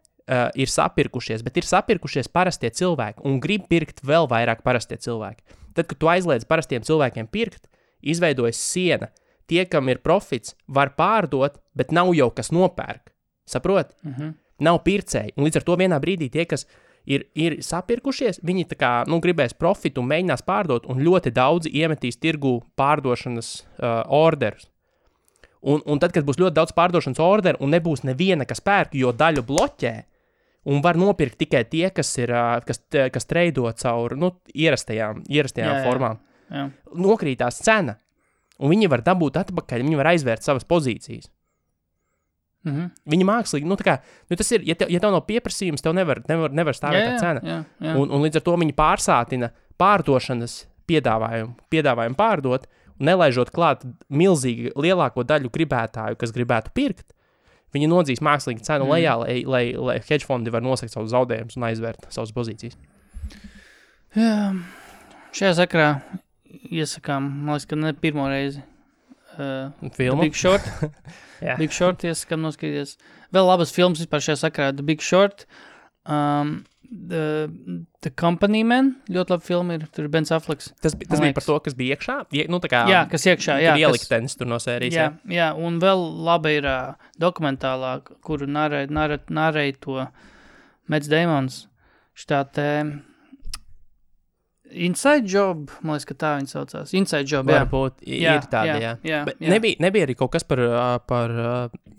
ir sapirkušies, bet ir sapirkušies parastie cilvēki un grib pirkt vēl vairāk parastie cilvēki. Tad, kad tu aizliedz parastiem cilvēkiem pirkt, izveidojas siena. Tie, kam ir profits, var pārdot, bet nav jau kas nopērk. Saprot? Nav pircēji. Un līdz ar to vienā brīdī tie, kas ir sapirkušies, viņi tā kā, gribēs profitu un mēģinās pārdot, un ļoti daudzi iemetīs tirgu pārdošanas orderus. Un tad, kad būs ļoti daudz pārdošanas orderu un nebūs neviena, kas pērk, jo daļu bloķē, un var nopirkt tikai tie, kas treido caur ierastajām formām. Jā. Nokrītās cena, un viņi var dabūt atpakaļ, viņi var aizvērt savas pozīcijas. Viņi mākslīgi, tas ir, ja tev nav pieprasījums, tev nevar stāvēt tā cena. Jā. Un līdz ar to viņi pārsātina pārdošanas piedāvājumu pārdot, nelaižot klāt milzīgi lielāko daļu gribētāju, kas gribētu pirkt, viņi nodzīs mākslīgi cenu lejā, lai hedge fondi var nosakt savus zaudējumus un aizvērt savas pozīcijas. Jā, šajā sakarā iesakām, man liekas, ka ne pirmo reizi. Filmu? Big Short. Big Short iesakām noskatīties. Vēl labas filmas vispār šajā sakarā. The Big Short, The Company Man, ļoti labi filma ir, tur Ben Afflecks. Tas bija par to, kas bija iekšā? Nu, tā kā... Jā, kas iekšā, jā. Ieliktenis tur no sērijas, jā. Un vēl labi ir dokumentālā, kuru narēja to Mads Damons. Šitā te Inside Job, man liekas, ka tā viņa saucās. Inside Job, jā. Varbūt ir tāda, jā. Bet nebija arī kaut kas par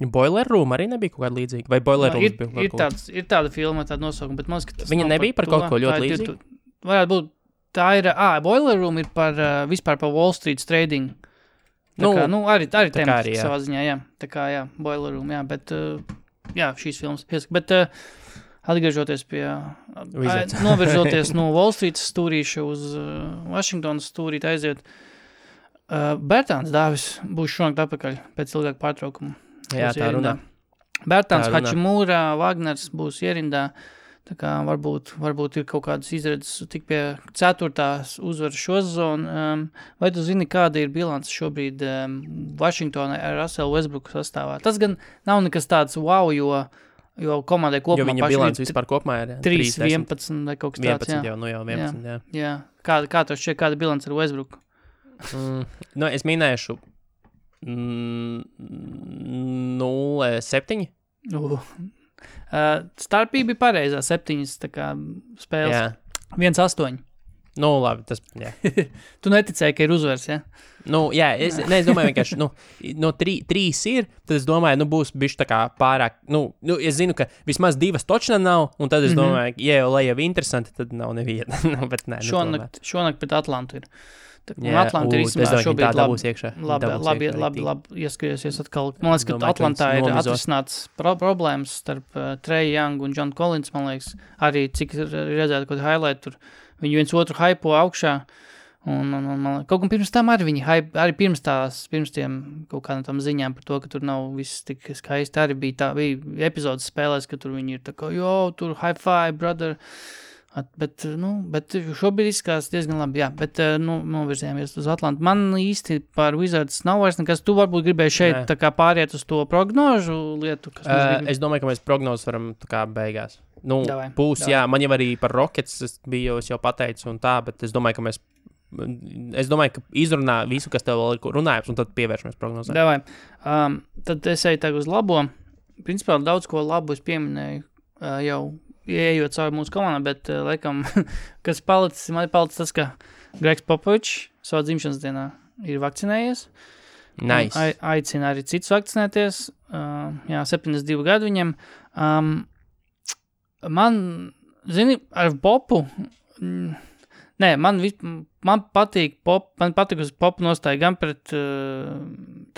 Boiler Room, arī nebija kaut kāda līdzīga? Vai Boiler Room bija? Ir tāda filma, tāda nosaukuma, bet man liekas, ka tas viņa nebija par kaut ko ļoti līdzīgu? Varētu būt, tā ir, Boiler Room ir vispār par Wall Street trading. Arī temats savā ziņā, jā. Tā kā, jā, Boiler Room, jā, bet, jā, šīs filmas. Bet, atgriežoties pie, novirzoties no Wall Street stūrīša uz Washingtonas stūrīt aiziet, Bertāns Dāvis būs šonakt atpakaļ pēc ilgāka pārtraukuma. Jā, tā runā. Bertāns Hačimūra, Wagners būs ierindā, tā kā varbūt ir kaut kādas izredzes tik pie 4. uzvaras šo sezonu. Vai tu zini, kāda ir bilance šobrīd Washingtonai ar Russell Westbrooku sastāvā? Tas gan nav nekas tāds wow, jo komandai kopumā jo viņa bilants vispār kopumā ir 3-11 vai kaut kas tāds, 11 jau, jau 11, jā. Jā. Kā tu šķiet, kāda bilants ar Westbrooku? Es minēšu 0-7. Starpība ir pareizā, 7 tā kā spēles. 1-8. Labi, tas, jā. Tu neticēji, ka ir uzvars, jā? Es domāju vienkārši, no 3 ir, tad es domāju, būs bišķi tā kā pārāk, es zinu, ka vismaz 2 točna nav, un tad es domāju, lai jau interesanti, tad nav neviena. Bet nē, šonakt pret Atlantu ir. Un Atlanta ir īstenībā šobrīd labi ieskaries atkal. Man liekas, ka Atlantā ir atrisināts problēmas starp Trey Young un John Collins, man liekas, arī cik redzētu kaut highlight tur. Viņi viens otru hypo augšā, un kaut kam pirms tam arī viņi arī pirms tiem kaut kādām tam ziņām par to, ka tur nav viss tik skaisti, arī bija epizodes spēlēs, ka tur viņi ir tā kā, tur high five, brother, bet šobrīd izskatās diezgan labi, jā, bet novirzējāmies uz Atlantu. Man īsti par Wizards nav vairs nekas, tu varbūt gribēji šeit tā kā pāriet uz to prognožu lietu, kas es domāju, ka mēs prognozes varam tā kā beigās. Būs, jā, man jau arī par Rockets es jau pateicu un tā, bet es domāju, ka izrunā visu, kas tev vēl ir runājums, un tad pievēršamies prognozē. Davai. Tad es eju tagad uz labo. Principā daudz ko labu es pieminēju jau ieejot cauri mūsu komandā, bet laikam, kas man ir palicis tas, ka Gregs Popovičs savā dzimšanas dienā ir vakcinējies. Nice. Aicina arī citus vakcinēties. 72 gadu viņam. Man, ar Popu, man patīk uz Popu nostāja gan pret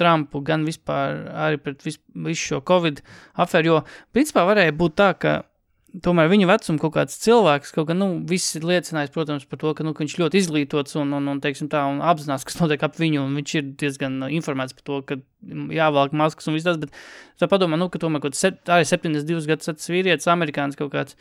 Trumpu, gan vispār arī pret visu šo Covid afēru, jo principā varēja būt tā, ka tomēr viņu vecumu kaut kāds cilvēks, kaut kā, viss ir liecinājis, protams, par to, ka viņš ļoti izglītots un teiksim tā, un apzinās, kas notiek ap viņu, un viņš ir diezgan informēts par to, ka jāvalk maskas un viss tas, bet tā padomā, ka tomēr arī 72 gadus vīrietis, amerikānis kaut kāds,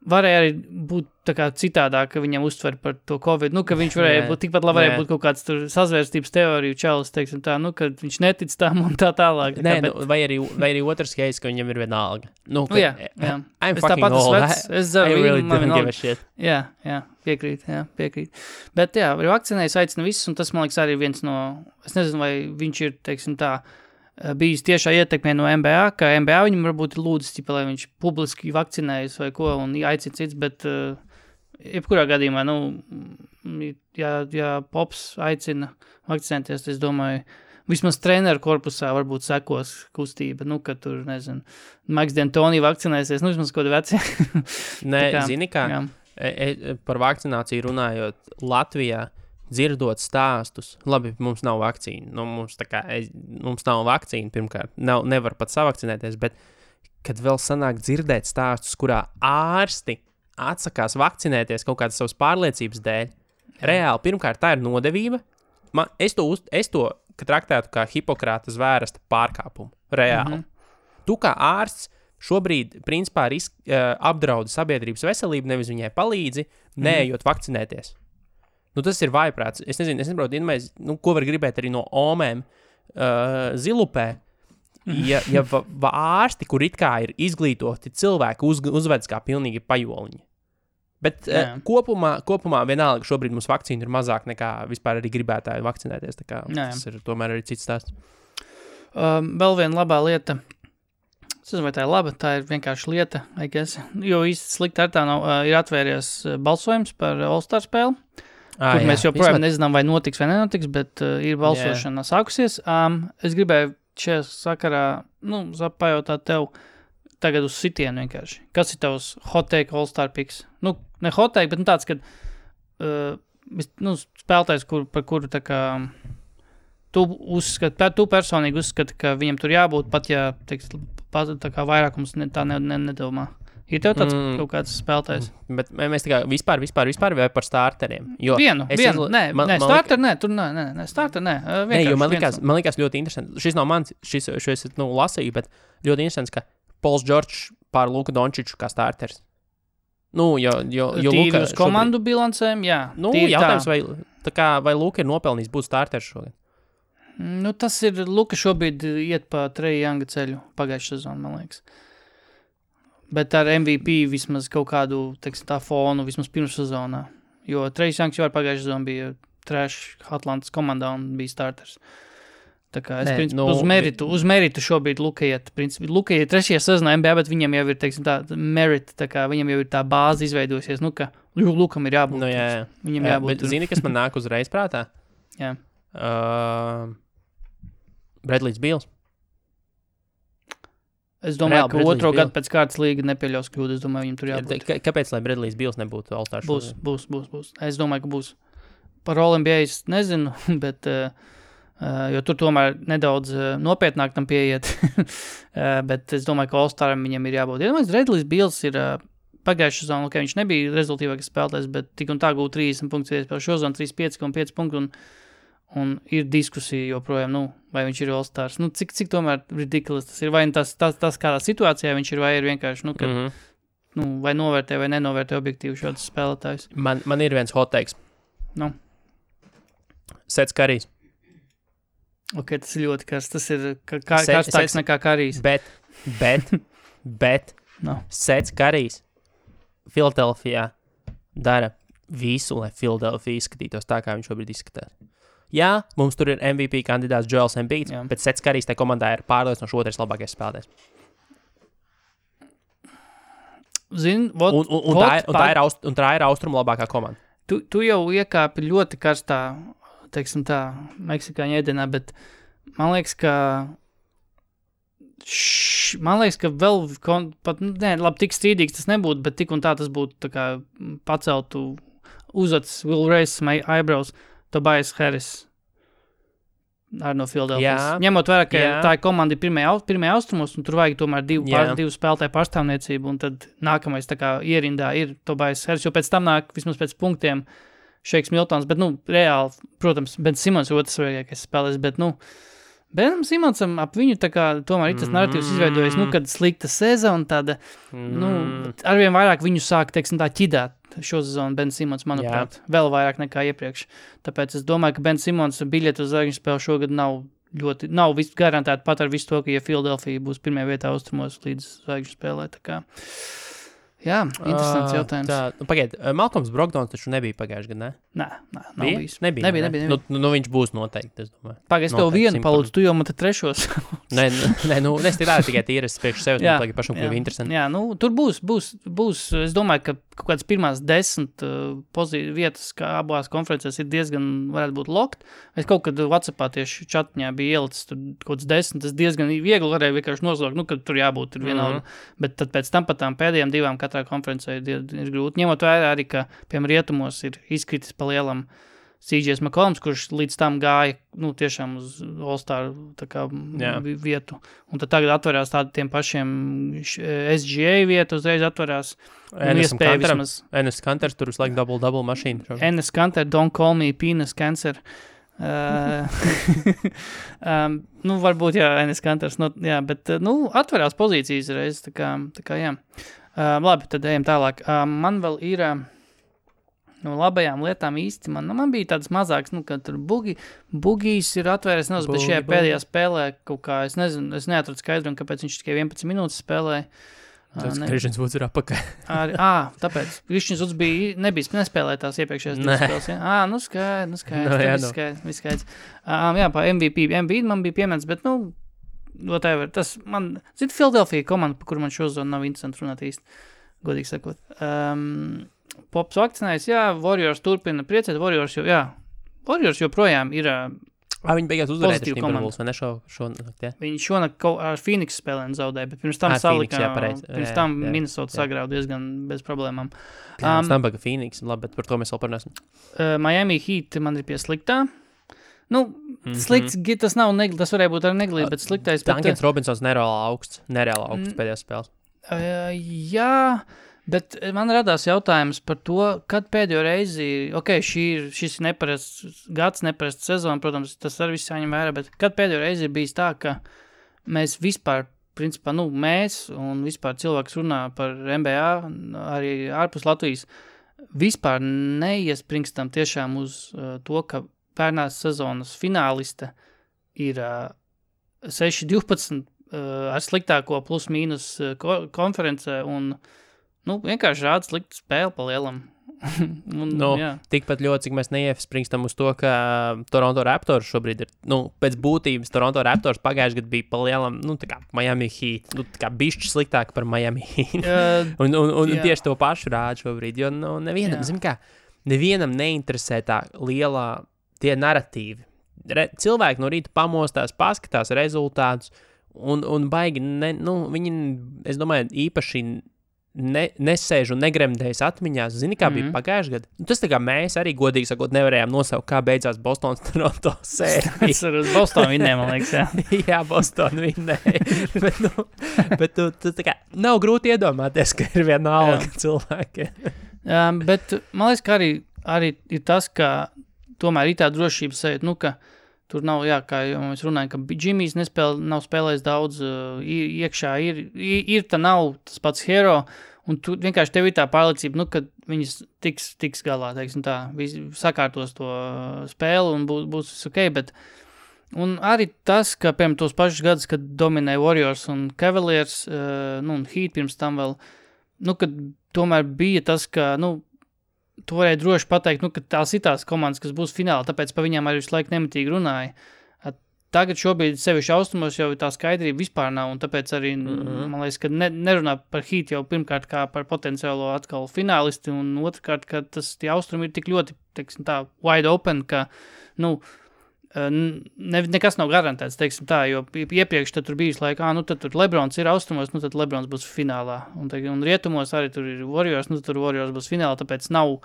varēja arī būt tā kā citādāk, ka viņam uztver par to Covid, ka viņš varēja būt, tikpat labi varēja būt kaut kāds tur sazvērstības teoriju čalis, teiksim tā, ka viņš netic tam un tā tālāk. Vai arī otrs case, ka viņam ir vienalga. Jā. I'm fucking old. I really don't give a shit. Jā, piekrīt. Bet jā, vakcinējas aicina visus, un tas, man liekas, arī viens no, es nezinu, vai viņš ir, teiksim tā, bijis tiešā ietekmē no NBA, ka NBA viņam varbūt ir lūdzis, lai viņš publiski vakcinējas vai ko, un aicina cits, bet jebkurā gadījumā, ja Pops aicina vakcinēties, es domāju, vismaz treneru korpusā varbūt sekos kustība, ka tur, nezinu, Maiks D'Antoni vakcinēsies, vismaz kaut kādi veci. Zini kā, par vakcināciju runājot Latvijā, dzirdot stāstus, labi, mums nav vakcīna, mums nav vakcīna, pirmkārt, nevar pat savakcinēties, bet, kad vēl sanāk dzirdēt stāstus, kurā ārsti atsakās vakcinēties kaut kādas savas pārliecības dēļ, reāli, pirmkārt, tā ir nodevība, es to traktētu kā Hipokrāta zvērsta pārkāpumu, reāli. Tu kā ārsts šobrīd, principā, apdraudi sabiedrības veselību, nevis viņai palīdzi, neejot vakcinēties. Tas ir vājprāts. Es nesaprotu, ko var gribēt arī no omēm zilupē. ja ārsti, kur it kā ir izglītoti cilvēki, uzvedas kā pilnīgi pajoliņi. Bet kopumā vienalga šobrīd mums vakcīna ir mazāk nekā vispār arī gribētāji vakcinēties. Tā kā tas ir tomēr arī cits stāsts. Vēl viena labā lieta. Es nezinu, vai tā ir laba, tā ir vienkārši lieta, I guess. Jo īsti slikti ar tā nav, ir atvērties balsojums par All-Star spēli, kur mēs joprojām nezinām, vai notiks vai nenotiks, bet ir balsošana sākusies. Es gribēju šajā sakarā, pajautāt tev tagad uz sitienu vienkārši. Kas ir tavs hot take All-Star picks? Ne hot take, bet tāds, kad spēlētājs, par kuru tā kā tu personīgi uzskati, ka viņam tur jābūt, pat ja tā kā vairākums tā nedomā. Ir tev tāds kaut kāds spēlētājs? Bet mēs tā kā vispār vai par starteriem? Vienu. Starter, man likās ļoti interesanti. Šis nav mans, šis lasīju, bet ļoti interesants, ka Pols Džordžs pār Luka Dončiču kā starters. Jo Luka uz komandu bilancēm, jā. Jautājums, vai Luka ir nopelnījis būt starters šodien? Tas ir, Luka šobrīd iet pa Treja Younga ceļu pagājušā sezonu, man liekas. Bet ar MVP vismaz kaut kādu, tā fonu, vismaz pirms sezonā. Jo Treja Youngs jau ar pagājušā sezonu bija trash Atlantas komandā un bija starters. Tā kā uz meritu šobrīd Luka iet. Luka iet 3. sezonā NBA, bet viņam jau ir, tā merit, tā kā viņam jau ir tā bāze izveidosies, ka Lukam ir jābūt. Viņam jābūt. Bet zini, kas man nāk uzreiz prātā? Jā. Bradley's Beals. Es domāju, ka otro gadu pēc kārtas līga nepieļaus kļūdu. Es domāju, viņam tur jābūt. Kāpēc, lai Bradley's Beals nebūtu All-Star? Būs. Es domāju, ka būs. Par All-NBA es nezinu, bet, jo tur tomēr nedaudz nopietnāk tam pieiet. Bet es domāju, ka All-Staram viņam ir jābūt. Ja domāju, Bradley's Beals ir pagājušā sezonu, viņš nebija rezultīvākais spēlētājs, bet tik un tā gūt 30 punktus, vēl šo sezonu 35,5 punktu un ir diskusija joprojām, vai viņš ir All-Stars. Cik tomēr ridiculous tas ir, vai tas kādā situācijā viņš ir, vai ir vienkārši, vai novērtē vai nenovērtē objektīvi šādus spēlētājus. Man ir viens hot takes. Sets Karijs. Ok, tas ir ļoti karsts. Tas ir karstāks nekā Karijs. Bet Sets Karijs Filadelfijā dara visu, lai Filadelfija izskatītos tā, kā viņš šobrīd izskatās. Jā, mums tur ir MVP kandidāts Joels Embiid, bet Sets Karijs tajā komandā ir pārliecinoši otrais labākais spēlētājs. Tā ir austrumu labākā komanda. Tu jau iekāpi ļoti karstā, teiksim tā, meksikāņu ēdienā, bet man liekas, ka vēl labi, tik strīdīgs tas nebūtu, bet tik un tā tas būtu tā kā paceltu uzacis, will raise my eyebrows, Tobias Harris arī no Philadelphia. Ņemot vērā, ka tā ir komanda pirmajā austrumos, un tur vajag tomēr divu spēlētāju pārstāvniecību, un tad nākamais tā kā ierindā ir Tobias Harris, jo pēc tam nāk vismaz pēc punktiem Šeiks Miltons, bet, reāli, protams, Ben Simons ir otrs svarīgākais spēlēs, bet, Benam Simonsam ap viņu tā kā tomēr ir tas narratīvs izveidojies, kad slikta sezona tāda, arvien vairāk viņu sāk, teiksim tā, ķidāt šo sezonu Ben Simons, manuprāt, vēl vairāk nekā iepriekš. Tāpēc es domāju, ka Ben Simons biļeti uz zvaigžņu spēli šogad nav garantēti pat ar visu to, ka ja Philadelphia būs pirmajā vietā austrumos līdz zvaigžņu spēlē, tā kā. Jā, interesants jautājums. Pagaid, Malcolms Brogdons taču nebija pagājuši gadu, ne? Nē, nav bijis. Nebija. Viņš būs noteikti, es domāju. Pagaid, es tev vienu palūdzu, tu jau man te trešos. Nē, es tikai tīras priekš sevis, man tagad pašam kļuvi interesanti. Jā, tur būs, es domāju, ka kaut kāds pirmās 10 vietas, kā abās konferencēs ir diezgan, varētu būt locked. Es kaut kad WhatsAppā tieši čatņā bija ielicis tur kaut kāds 10, tas diezgan viegli varēja vienkārši noslaukt, kad tur jābūt ir vienalga. Bet tad pēc tam pat tām pēdējām 2 katrā konferencē ir grūti. Ņemot vērā arī, ka, piemēram, rietumos ir izkritis pa lielam CJs McCollums, kurš līdz tam gāja, tiešām uz All-Star vietu. Un tad tagad atverās tādiem pašiem SGA vietu, uzreiz atverās. Enes Kanters tur uz laiku double mašīnu. Enes Kanter, don't call me penis cancer. Varbūt, Enes Kanters, bet, atverās pozīcijas reiz, tā kā jā. Labi, tad ejam tālāk. Man vēl ir no labajām lietām īsti man bija tāds mazāks, kad tur bugijs ir atvērts, bet šajā pēdējā spēlē kaut kā, es nezinu, es neatradu skaidrumu, kāpēc viņš tikai 11 minūtes spēlēja. Tas Krišņs Vuds ir apakaļ. Tāpēc. Krišņs Vuds nespēlēja tās iepriekšējās divas spēles. Ja? Skaidrs. Viss skaidrs. Pa MVP man bija piemērs, bet, whatever. Tas man, Philadelphia komanda, par kuru man šozonu nav interesanti runāt īsti, godīgi sakot. Pops vakcinājis, Warriors turpina priecēt, Warriors joprojām ir viņi beigās uzvarēja Timberwolves, vai ne šonakt, ja? Viņi šonakt ar Phoenix spēlēm zaudēja, bet pirms tam Minnesota sagrauda diezgan bez problēmām. Pirms tam baga Phoenix, labi, bet par to mēs vēl parunāsim. Miami Heat man ir pie sliktā. Slikts, tas nav negli, tas varēja būt arī neglīt, bet sliktais. Dunkans Robinsons nereāli augsts pēdējās spēles. Jā, bet man radās jautājums par to, kad pēdējo reizi, šis ir neparasts gads, neparasts sezona, protams, tas arī viss jāņem vērā, bet kad pēdējo reizi ir bijis tā, ka mēs vispār, principā, mēs un vispār cilvēks runā par NBA, arī ārpus Latvijas, vispār neiespringstam tiešām uz to, ka pērnās sezonas fināliste ir 6-12 ar sliktāko plus mīnus konferencē un vienkārši rāda sliktu spēli pa lielam. Tikpat ļoti, cik mēs neiespringstam uz to, ka Toronto Raptors šobrīd ir, pēc būtības Toronto Raptors pagājuši gadu bija pa lielam, tā kā Miami Heat, tā kā bišķi sliktāk par Miami Heat. un tieši to pašu rāda šobrīd, jo nevienam neinteresē tā lielā tie naratīvi. Cilvēki no rīta pamostās, paskatās rezultātus, un baigi, viņi, es domāju, īpaši nesēž un negremdējas atmiņās. Zini, kā bija pagājuši gadu? Tas tā kā mēs arī, godīgi sakot, nevarējām nosaukt, kā beidzās Bostonas Toronto sērija. Es ar Bostonu vinnēju, man liekas, jā. Jā, Bostonu vinnēju. bet tu tā kā nav grūti iedomāties, ka ir vienalga cilvēki. Bet man liekas, ka arī ir tas, ka tomēr ir tā drošības sajūta, ka tur nav, kā jau mēs runājam, ka Jimmy's nav spēlējis daudz, iekšā ir tā nav tas pats hero, un tu vienkārši tev ir tā pārliecība, ka viņas tiks galā, teiksim tā, sakārtos to spēli un būs viss ok, bet un arī tas, ka, piemēram, tos pašus gadus, kad dominēja Warriors un Cavaliers, un Heat pirms tam vēl, kad tomēr bija tas, ka, tu varēji droši pateikt, ka tās ir tās komandas, kas būs finālā, tāpēc pa viņām arī visu laiku nemitīgi runāja. Tagad šobrīd sevišķi austrumos jau tā skaidrība vispār nav, un tāpēc arī, man liekas, ka nerunā par Heat jau pirmkārt kā par potenciālo atkal finālisti, un otrkārt, ka tie austrumi ir tik ļoti, teiksim tā, wide open, ka, nekas nav garantēts, teiksim tā, jo iepriekš tad tur bijis laika, tad tur Lebrons ir austrumos, tad Lebrons būs finālā, un rietumos arī tur ir Warriors, tur Warriors būs finālā, tāpēc nav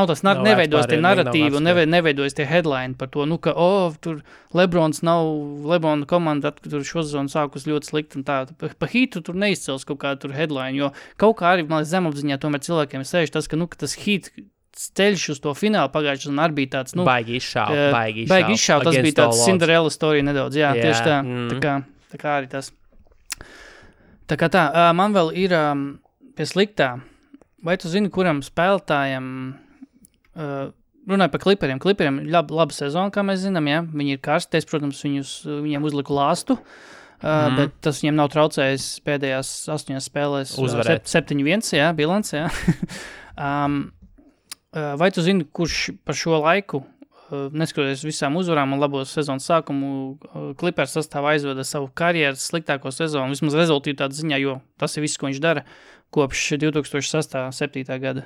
tas, neveidojas tie narratīvi un neveidojas tie headline par to, ka, tur Lebrons Lebrona komanda tur šo sezonu sākus ļoti slikti un tā. Pa Heatu tur neizcels kaut kādu tur headline, jo kaut kā arī, man liekas, zemapziņā tomēr cilvēkiem sēž tas, ka tas Heat ceļš uz to finālu pagājušajā sezonā arī bija tāds, baigi izšāv. Tas bija tāds Cinderella story nedaudz, tieši tā. Tā kā arī tas. Tā kā tā, man vēl ir pie sliktā. Vai tu zini, kuram spēlētājiem runāju par Clipperiem. Clipperiem ir laba sezona, kā mēs zinām, Viņi ir karsties, protams, viņiem uzliku lāstu, bet tas viņiem nav traucējis pēdējās 8 spēlēs. Uzvarēt. 7-1, bilants, Vai tu zini, kurš par šo laiku, neskatoties visām uzvarām un labo sezonas sākumu, Clippers sastāvā aizveda savu karjeras sliktāko sezonu, vismaz rezultātu ziņā, jo tas ir viss, ko viņš dara kopš 2006.-7. gada.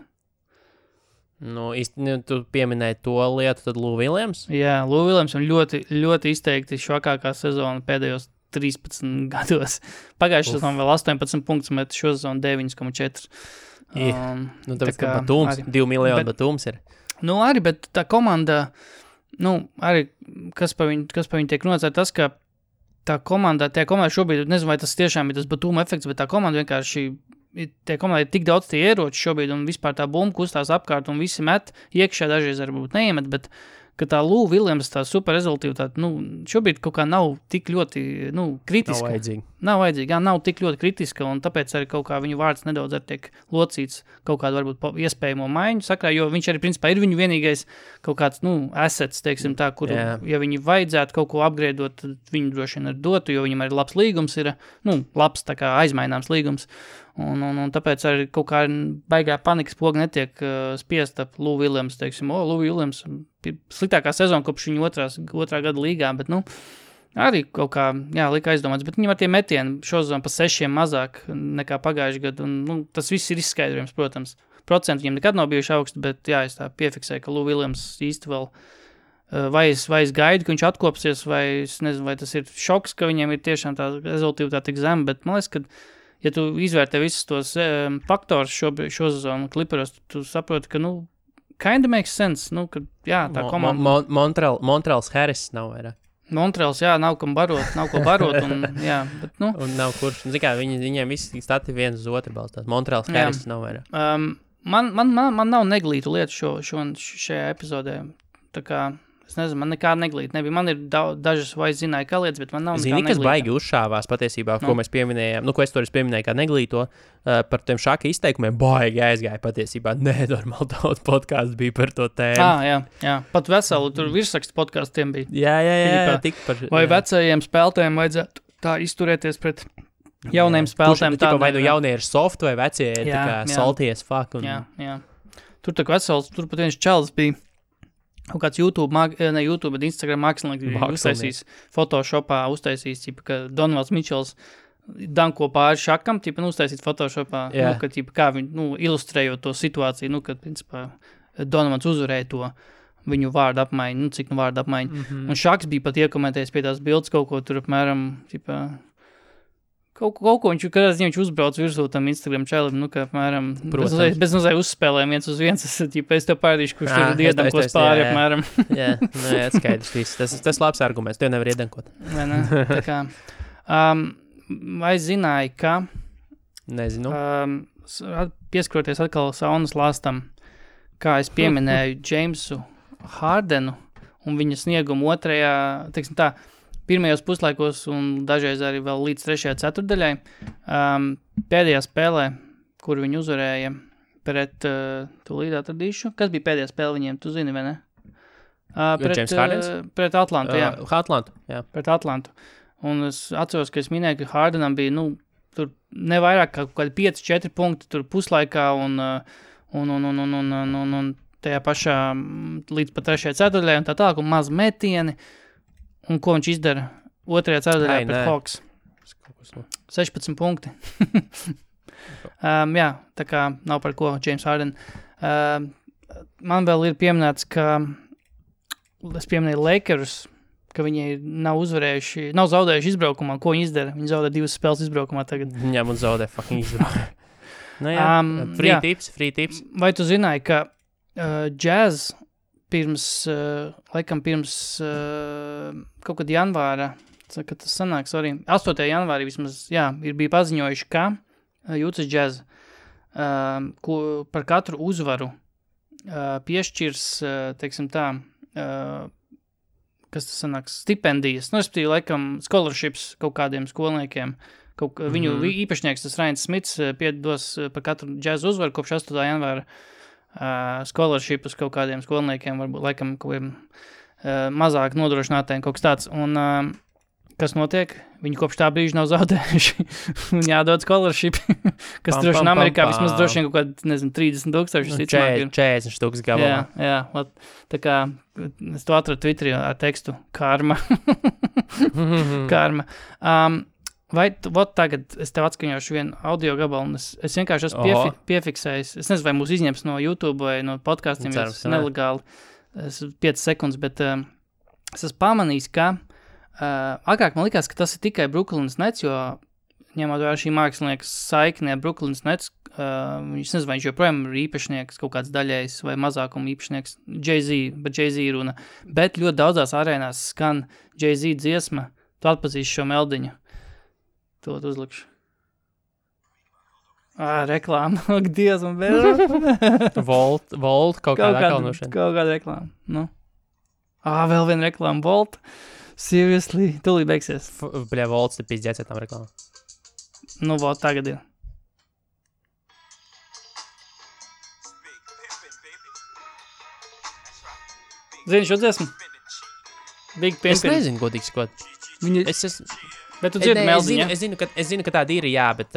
Tu pieminēji to lietu, tad Lou Williams? Jā, Lou Williams un ļoti, ļoti izteikti švakākā sezona pēdējos 13 gados. Pagājušajā sezonā vēl 18 punktus, bet šo sezonu 9,4. Tāpēc, ka Batums, 2 miljoni Batums ir. Arī, bet tā komanda, arī, kas pa viņu tiek runāts, ir tas, ka tā komanda šobrīd, nezinu, vai tas tiešām ir tas Batuma efekts, bet tā komanda vienkārši, tie komandai ir tik daudz tie ieroči šobrīd, un vispār tā bumba kustās apkārt, un visi met iekšā, dažreiz varbūt neiemet, bet ka tā Lou Williams, tā super rezultīva, šobrīd kaut kā nav tik ļoti, kritiska. Nav vajadzīga, nav tik ļoti kritiska, un tāpēc arī kaut kā viņu vārds nedaudz arī tiek locīts kaut kādu varbūt iespējamo maiņu sakrā, jo viņš arī principā ir viņu vienīgais kaut kāds, assets, teiksim tā, kur, ja viņi vajadzētu kaut ko upgradeot, tad viņu droši vien arī dotu, jo viņam arī labs līgums ir, labs tā kā aizmaināms līgums, un tāpēc arī kaut kā baigā panikas poga netiek spiest ap Lou Williams, teiksim, Lou Williams, sliktākā sezona kopš viņa otrā gada līgā, bet, arī kaut kā, lika aizdomāts, bet viņam ar tie metieni šo sezonu pa 6 mazāk nekā pagājuši gadu, un tas viss ir izskaidrojums, protams. Procenti viņam nekad nav bijuši augsti, bet es tā piefiksēju, ka Lou Williams īsti vēl vai es gaidu, ka viņš atkopsies, vai es nezinu, vai tas ir šoks, ka viņiem ir tiešām tā rezultīva tik zema, bet man liekas, ka ja tu izvērtē visus tos faktorus šo sezonu Clipperos, tu saproti, ka, kinda makes sense, ka, tā komanda... Montreals Harris nav vairāk. Montreals, nav ko barot, un, bet, Un nav kurš, viņiem visi stati viens uz otru balstās. Montreals Harris nav vairāk. Man nav neglītu lietu šajā epizodē, tā kā, es nezinu, man nekā neglīta nebija. Man ir dažas vai zināja, kā lietas, bet man nav nekā neglīta. Kas baigi uzšāvās patiesībā, ko mēs pieminējām, ko es toreiz pieminēju kā neglīto, par tiem šāka izteikumiem, baigi aizgāja patiesībā. Nenormāli daudz podcastu bija par to tēmu. Jā. Pat veselu, tur virsrakstu podkastiem bija. Jā, tik par... Vai vecajiem spēlētājiem vajadzētu tā izturēties pret jauniem spēlētājiem? Vai jaunie ir soft vai vecie ir tā kā salties fuck. Jā. Tur tā kā vesels, tur pat viens čalis bija. Kaut kāds YouTube, bet Instagram mākslinieks uztaisīs Photoshopā, ka Donovans Mičels danko pāri šakam, uztaisīt Photoshopā, kā viņi, ilustrējot to situāciju, kad, principā, Donovans uzvarēja to viņu vārdu apmaiņu, cik vārdu apmaiņu. Un šaks bija pat iekomentējis pie tās bildes kaut ko tur apmēram, Kaut ko viņš uzbrauc virsū tam Instagram čēlim, kā apmēram, bez nozēja uzspēlēm 1-1, es tev pārādīšu, kurš tur iedankos pāri apmēram. Jā, skaidrs viss. Tas labs arguments, tev nevar iedankot. Tā kā, vai zināji, ka... Nezinu. Pieskaroties atkal saunas lāstam, kā es pieminēju Jamesu Hardenu un viņa sniegumu otrajā, teiksim tā, pirmajos puslaikos un dažreiz arī vēl līdz 3. ceturdaļai. Pēdējā spēlē, kur viņi uzvarēja pret, tūlīt atradīšu. Kas bija pēdējā spēle viņiem, tu zini, vai ne? Pret Atlantu, jā. Atlantu, jā. Pret Atlantu. Un es atceros, ka es minēju, ka Hardenam bija, tur nevairāk kā kādi 5-4 punkti tur puslaikā un tajā pašā līdz pat 3. ceturdaļai un tā tālāk, un maz metieni. Un ko viņš izdara 2. ceturdaļā pret Hawks? 16 punkti. Jā, tā kā nav par ko James Harden. Man vēl ir pieminēts, ka es pieminēju Lakers, ka viņi nav zaudējuši izbraukumā. Ko viņi izdara? Viņi zaudē 2 spēles izbraukumā tagad. Viņam un zaudē fucking izbraukumā. Free tips. Vai tu zināji, ka Jazz pirms kaut kad janvāra, kad tas sanāk, 8. janvārī vismaz, bija paziņojuši, ka Utah Jazz par katru uzvaru piešķirs, teiksim tā, kas tas sanāks, stipendijas, respektīvi, laikam, scholarships kaut kādiem skolniekiem. Viņu īpašnieks, tas Ryan Smits, piedos par katru Jazz uzvaru kopš 8. janvāra scholarshipus kaut kādiem skolniekiem, varbūt laikam kaut kādiem mazāk nodrošinātiem, kaut kas tāds. Un kas notiek? Viņi kopš tā brīža nav zaudējuši. Un jādod scholarship, kas droši vien Amerikā vismaz droši vien kaut kādi, nezinu, 30,000. 40 štuks gabalā. Jā, tā kā es to atradu Twitterī ar tekstu karma. Karma. Vai tagad es tev atskaņošu vienu audio gabalu, un es vienkārši esmu piefiksējis. Es nezinu, vai mūs izņems no YouTube vai no podcastiem, ja tas nelegāli. 5 sekundes, bet es esmu pamanījis, ka agrāk man likās, ka tas ir tikai Brooklyn's Nets, jo ņemot vērā šī mākslinieka saikne ar Brooklyn's Nets, viņš nezinu, vai viņš joprojām ir īpašnieks, kaut kāds daļējs vai mazākuma īpašnieks, Jay-Z runa, bet ļoti daudzās arēnās skan Jay-Z dziesma, tu atpazīsi šo meldiņu. To uzlikšu. Reklāma. Ak, Dievs, man vēl. Volt, kaut kāda akalnošana. Kaut kāda reklāma. Vēl viena reklāma. Volt. Seriously. Tūlīt beigsies. Volts te pizdzēts ar tām reklāmām. Nu, vēl tagad ir. Zini šo dziesmu? Big Pimpin. Es nezinu, godīgi sakot. Viņa... Bet tu dzirdi meldiņu, es zinu, ka tāda ir, jā, bet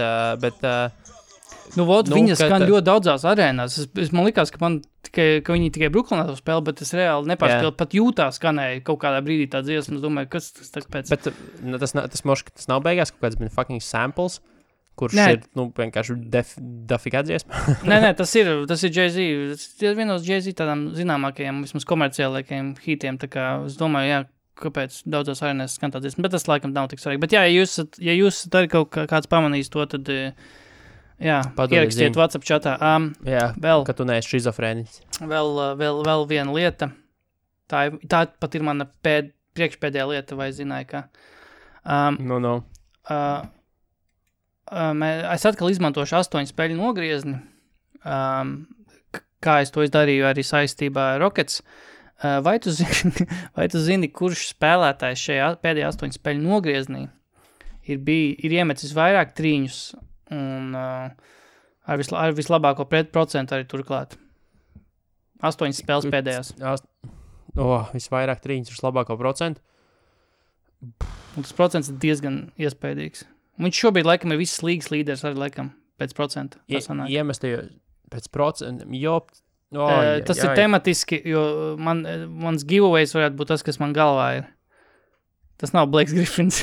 viņas skan ļoti daudzās arēnās. Man likās, ka viņi tikai Brooklynā to spēlē, bet es reāli nepārspēlu. Pat Jūtā skanēja kaut kādā brīdī tā dziesma. Es domāju, kas tas pēc... Bet tas nav beigās kaut kāds fucking samples, kurš ir, vienkārši dafigā dziesma. Nē, tas ir Jay-Z. Tas ir vienos Jay-Z tādām zināmākajiem, vismaz komerciālākajiem hitiem. Tā kā es domāju, jā, kāpēc daudzās arēnās skan tā dziesma. Bet tas laikam nav tik svarīgi. Bet jā, ja jūs arī kaut kāds pamanīs to, tad... Jā, ierakstiet WhatsApp chatā. Vēl, ka tu neesi šizofrēnis. Vēl viena lieta. Tā pat ir mana priekšpēdējā lieta, vai zināju, ka... Es atkal izmantošu 8 spēļu nogriezni. Kā es to izdarīju arī saistībā ar Rockets. Vai tu zini, kurš spēlētājs šajā pēdējā 8 spēļu nogrieznī ir iemecis vairāk trīņus un ar vislabāko procentu arī turklāt. 8 spēles pēdējās. Visvairāk trīņus ar vislabāko procentu? Un tas procents ir diezgan iespējīgs. Viņš šobrīd laikam ir visas līgas līderis arī laikam pēc procenta. Iemestajos pēc procenta, tas ir tematiski, jo mans giveaways varētu būt tas, kas man galvā ir. Tas nav Blakes Griffins.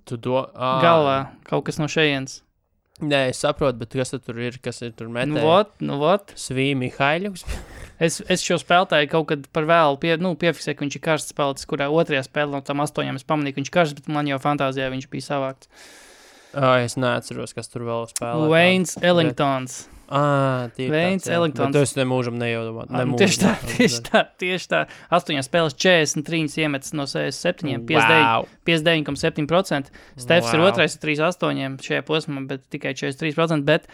Galvā, kaut kas no šejienes. Nē, es saprotu, bet kas tur ir, kas ir tur metē? Nu vot. Svīmi Haiļuks. Es šo spēlētāju kaut kad par vēlu piefiksēju, ka viņš ir karsts spēlētājs, kurā otrajā spēlē no tam 8 es pamanīju, ka viņš karsts, bet man jau fantāzijā viņš bija savākts. Es neatceros, kas tur vēl spēlē. Wayne Ellingtons. Wayne Ellingtons. Bet tu esi nemūžam nejaudomāt. Tieši tā. 8 spēles 43 iemetas no 67, 59,7%. Stefs ir otrais ar 3,8 šajā posmā, bet tikai 43%. Bet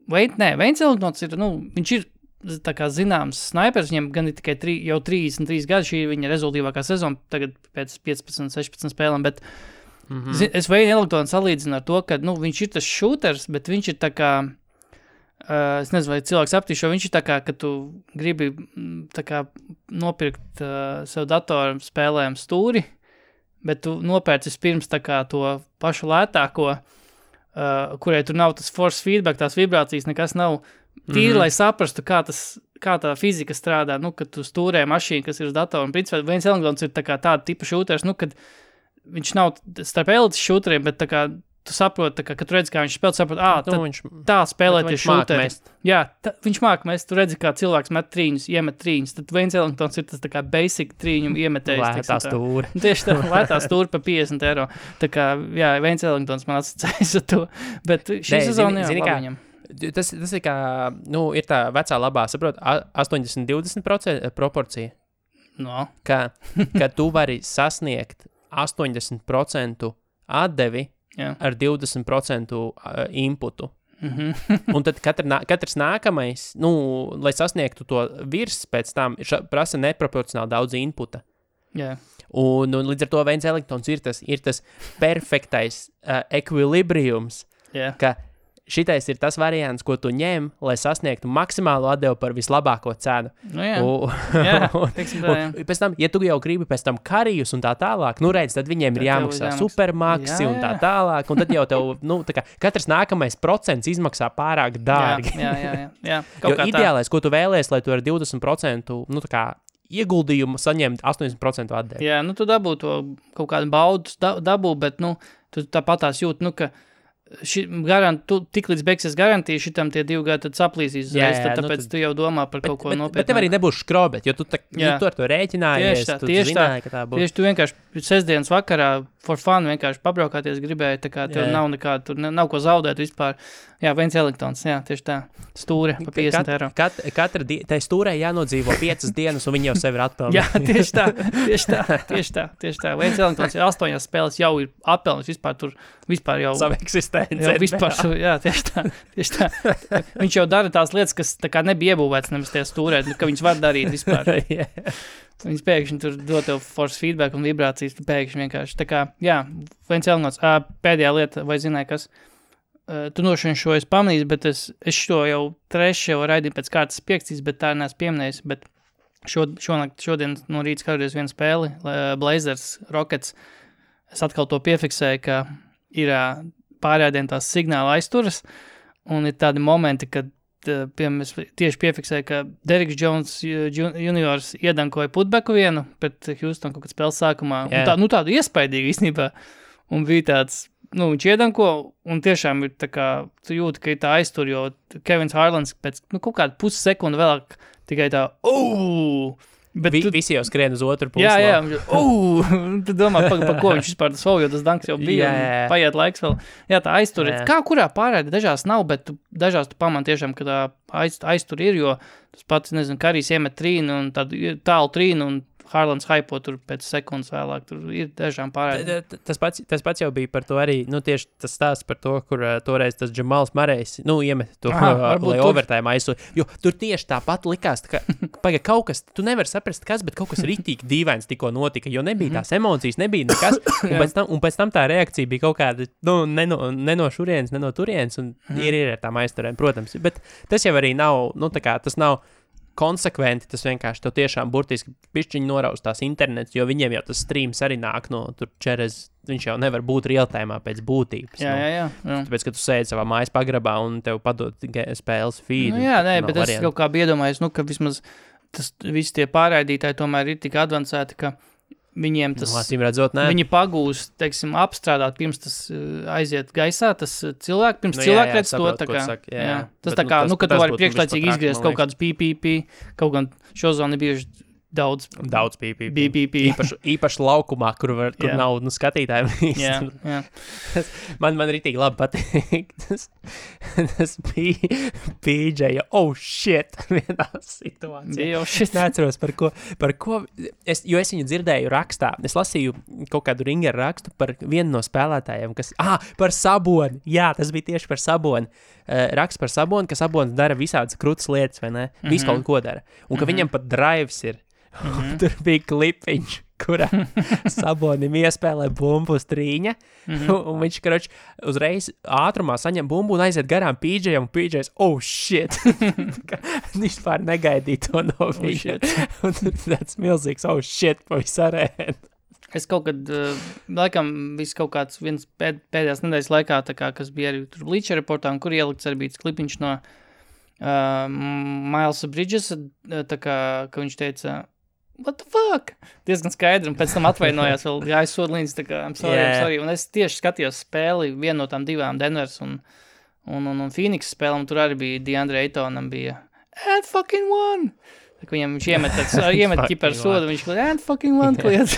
Wayne Ellingtons ir, viņš ir tā kā zināms snaipers, viņam gan ir tikai jau 33 gadi, šī ir viņa rezultīvākā sezona, tagad pēc 15-16 spēlēm, bet es Wayne Ellingtonu salīdzinu ar to, ka, viņš ir tas shooters, bet viņš ir tā kā, es nezinu, vai cilvēks aptīšo, viņš ir tā kā, ka tu gribi tā kā nopirkt sev datoru spēlēm stūri, bet tu nopērci vispirms tā kā to pašu lētāko, kurai tur nav tas force feedback, tās vibrācijas, nekas nav tīri, lai saprastu, kā tā fizika strādā, kad tu stūrē mašīnu, kas ir uz datoru, un principā Wayne Ellingtons ir tā kā tāda tipa šūters, kad viņš nav starp elites šūteriem, bet tā kā tu saproti, kad tu redzi, kā viņš spēlē, saproti, tā spēlēt ir šūteri. Jā, viņš māk mest, tu redzi, kā cilvēks met trīņus, iemet trīņus, tad Wayne Ellingtons ir tas tā kā basic trīņu iemetējs. Lētā stūra. Tieši tā, lētā stūra pa €50. Tā kā, jā, Wayne Ellingtons man asociējas ar to, bet šī sezona, jā, labi viņam. Tas ir kā, ir tā vecā labā, saprot, 80-20% proporcija. No. Ka tu vari sasniegt 80% atdevi ar 20% inputu. Un tad katrs nākamais, lai sasniegtu to virs pēc tam, prasa neproporcionāli daudz inputa. Yeah. Un līdz ar to Wayne Ellingtons ir tas perfektais ekvilibriums, ka šitais ir tas variants, ko tu ņem, lai sasniegtu maksimālu atdevu par vislabāko cenu. Pēc tam, ja tu jau gribi pēc tam karijus un tā tālāk, redz, tad viņiem ir jāmaksā supermaksi un tā tālāk, un tad jau tev, tā kā katrs nākamais procents izmaksā pārāk dārgi. Jā. Jo ideālais, ko tu vēlies, lai tu ar 20%, tā kā ieguldījumu saņemt 80% atdevi. Jā, tu dabū to kaut kādu baudu, bet, tu tāpatās jūt, ka tik līdz beigsies garantija, šitam tie 2 gadi tad saplīsīs uzreiz, tāpēc tu jau domā par kaut ko nopietnāku. Bet tev arī nebūs škrobet, jo tu ar to rēķinājies, tu zināji, ka tā būs. Tieši tu vienkārši sestdienas vakarā for fun vienkārši pabraukāties gribēji, tā kā tev nav nekāda, tur nav ko zaudēt vispār. Jā, Wayne Ellingtons, jā, tieši tā, stūre pa €50. Tai stūrē jānodzīvo 5 dienas, un viņi jau sevi ir atpelnījuši. Jā, tieši tā. Wayne Ellingtons 8 spēles jau ir atpelnījis vispār jau savu eksistenci. Jā, vispār, jā, tieši tā. Viņš jau dara tās lietas, kas tā kā nebija iebūvēts nemaz tajā stūrē, ka viņš var darīt vispār. Viņas pēkšņi tur dod tev force feedback un vibrācijas, tu pēkšņi vienkārši. Tā kā, jā, viens elements. Pēdējā lieta, vai zināji, kas? Tu nošķiņ šo es pamanīju, bet es šo jau trešo raidīju pēc kārtas piekstīs, bet tā neesmu pieminējis, bet šodien no rīta skatoties vienu spēli, Blazers, Rockets, es atkal to piefiksēju, ka ir pārējādien tās signāla aizturas, un ir tādi momenti, kad piemēram, es tieši piefiksēju, ka Derrick Jones juniors iedankoja putbeku vienu pret Houston kaut kad spēles sākumā. Yeah. Tādu iespaidīgu īstenībā. Un bija tāds, viņš iedanko, un tiešām ir tā kā, tu jūti, ka ir tā aiztur, jo Kevins Harlans pēc kaut kādu pussekundu vēlāk tikai tā, Bet visi jau skrien uz otru pusi. Jā, tu domā, par ko viņš vispār tas vēl, jo tas danks jau bija, un paiet laiks vēl. Jā, tā aiztur ir. Kā kurā pārēdi, dažās nav, bet dažās tu pamani tiešām, ka tā aiztur ir, jo tas pats, nezinu, Karijs iemet trīnu un tādu tālu trīnu un Harlands haipo tur pēc sekundes vēlāk, tur ir dažām pārēdi. Tas pats jau bija par to arī, tieši tas stāsts par to, kur toreiz tas Džamals Marejs, iemet to, lai overtime aizsūd. Jo tur tieši tāpat likās, ka kaut kas, tu nevari saprast kas, bet kaut kas ritīgi dīvains tikko notika, jo nebija tās emocijas, nebija nekas, un pēc tam tā reakcija bija kaut kāda, ne no šurienes, ne no turienes, un ir ar tām aizturēm, protams. Bet tas jau arī nav, tas nav konsekventi, tas vienkārši tev tiešām burtiski pišķiņi norauz tās internets, jo viņiem jau tas streams arī nāk no tur čerez, viņš jau nevar būt realtājumā pēc būtības. Jā. Tāpēc, ka tu sēdi savā mājas pagrabā un tev padod spēles feed. Bet es kaut kā iedomājos, ka vismaz visi tie pārraidītāji tomēr ir tik advancēti, ka viņiem tas, viņi pagūst, teiksim, apstrādāt, pirms tas aiziet gaisā, tas cilvēks redz to, tā kā, tas tā kā, ka tu vari priekšlaicīgi izgriezt kaut kādus PPP, kaut gan šozoni bieži daudz PPP. Īpaši laukumā, kur nav skatītājiem. Jā. Man ritīgi labi patīk. Tas bija PJ, shit, vienā situācijā. Neatceros, par ko, jo es viņu dzirdēju rakstā. Es lasīju kaut kādu Ringeru rakstu par vienu no spēlētājiem, kas, par Saboni. Jā, tas bija tieši par Saboni. Raksts par Saboni, ka Sabonis dara visādas krūtas lietas, vai ne? Visu kaut ko dara. Un ka viņam pat drives ir. Tur bija klipiņš, kurā Sabonim iespēlē bumbu uz trīņa, un viņš, uzreiz ātrumā saņem bumbu un aiziet garām PJam, un PJs, shit! Vispār negaidīja to no viņa. Un tāds milzīgs, shit, pa visu arēnu. Es kaut kad, laikam, viss kaut kāds viens pēdējās nedēļas laikā, tā kā, kas bija arī tur Bleacher Reportā, un kur ielikts arī bija klipiņš no Milesa Bridges, tā kā, ka viņš teica, what the fuck? Diezgan skaidri, un pēc tam atvainojās vēl jāizsoda līdz, tā kā, I'm sorry. Un es tieši skatījos spēli, vienu no tām divām, Denvers un Phoenix spēlēm, tur arī bija DeAndre Aytonam bija, and fucking one! Tā kā viņš iemet ķiparu sodu, viņš kliet, and fucking one kliet.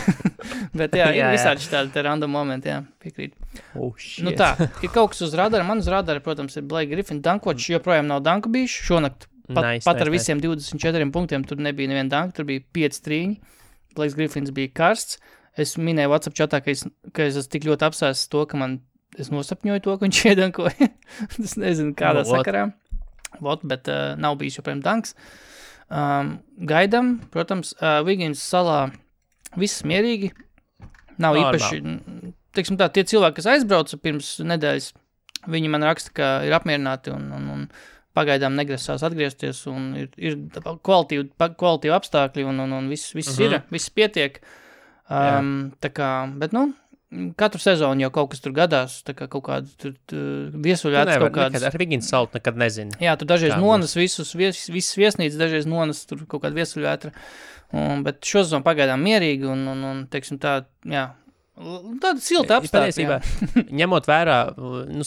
Bet ir visādi tādi random momenti, piekrīt. Shit. Tā, ir kaut kas uz radara, man uz radara, protams, ir Blake Griffin, dankočs joprojām nav danku bijuši, šonakt pat ar visiem 24 punktiem, tur nebija neviena danka, tur bija 5 trīņi, Blake Griffins bija karsts, es minēju WhatsApp chatā, ka es esmu tik ļoti apsēsts to, ka es nosapņoju to, ka viņš iedankoja, es nezinu kādā sakarā, bet nav bijis joprojām danks. Gaidam, protams, Wiggins salā viss mierīgi, nav īpaši, teiksim tā, tie cilvēki, kas aizbrauca pirms nedēļas, viņi man raksta, ka ir apmierināti un pagaidām negrasās atgriezties, un ir kvalitīvi apstākļi, un viss ir, viss pietiek. Tā kā, bet, katru sezonu jau kaut kas tur gadās, tā kā kaut kāda viesuļvētras kaut kādas. Ar Wiggins salu nekad nezinu. Jā, tur dažreiz nonas visas viesnīcas, dažreiz nonas tur kaut kāda viesuļvētra, bet šo sezonu pagaidām mierīgi, un teiksim tā, jā, tāda silta apstākļa. Ņemot vērā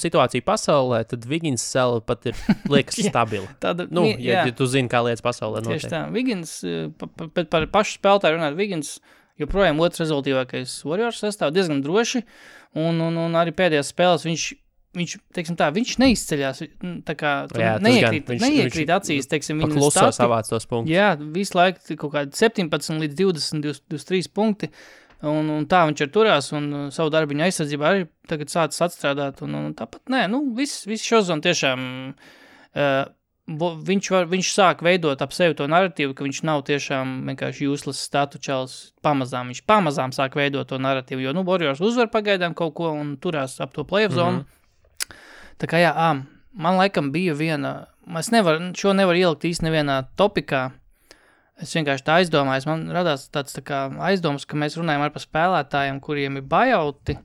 situāciju pasaulē, tad Wiggins sala pat ir liekas stabila. Ja tu zini, kā lietas pasaulē notiek. Tieši tā. Wiggins, par pašu spēlētāju runāt, Wiggins joprojām otrs rezultīvākais Warriors sastāv diezgan droši, un arī pēdējās spēles viņš, teiksim tā, viņš neizceļās, tā kā neiekrīt acīs, teiksim, viņa pakluso savāc tos punktus. Jā, visu laiku kaut kādi 17 līdz 20, 23 punkti, un tā viņš ir turās, un savu darbiņu aizsardzībā arī tagad sācis atstrādāt, un tāpat, viss šozon tiešām viņš sāk veidot ap sevi to narratīvu, ka viņš nav tiešām vienkārši useless statu čels pamazām. Viņš pamazām sāk veidot to narratīvu, jo, Warriors uzvar pagaidām kaut ko un turās ap to playoff zonu. Tā kā man laikam bija šo nevar ielikt īsti nevienā topikā. Es vienkārši tā aizdomājos, man radās tāds tā kā aizdomas, ka mēs runājam ar par spēlētājiem, kuriem ir buyouti,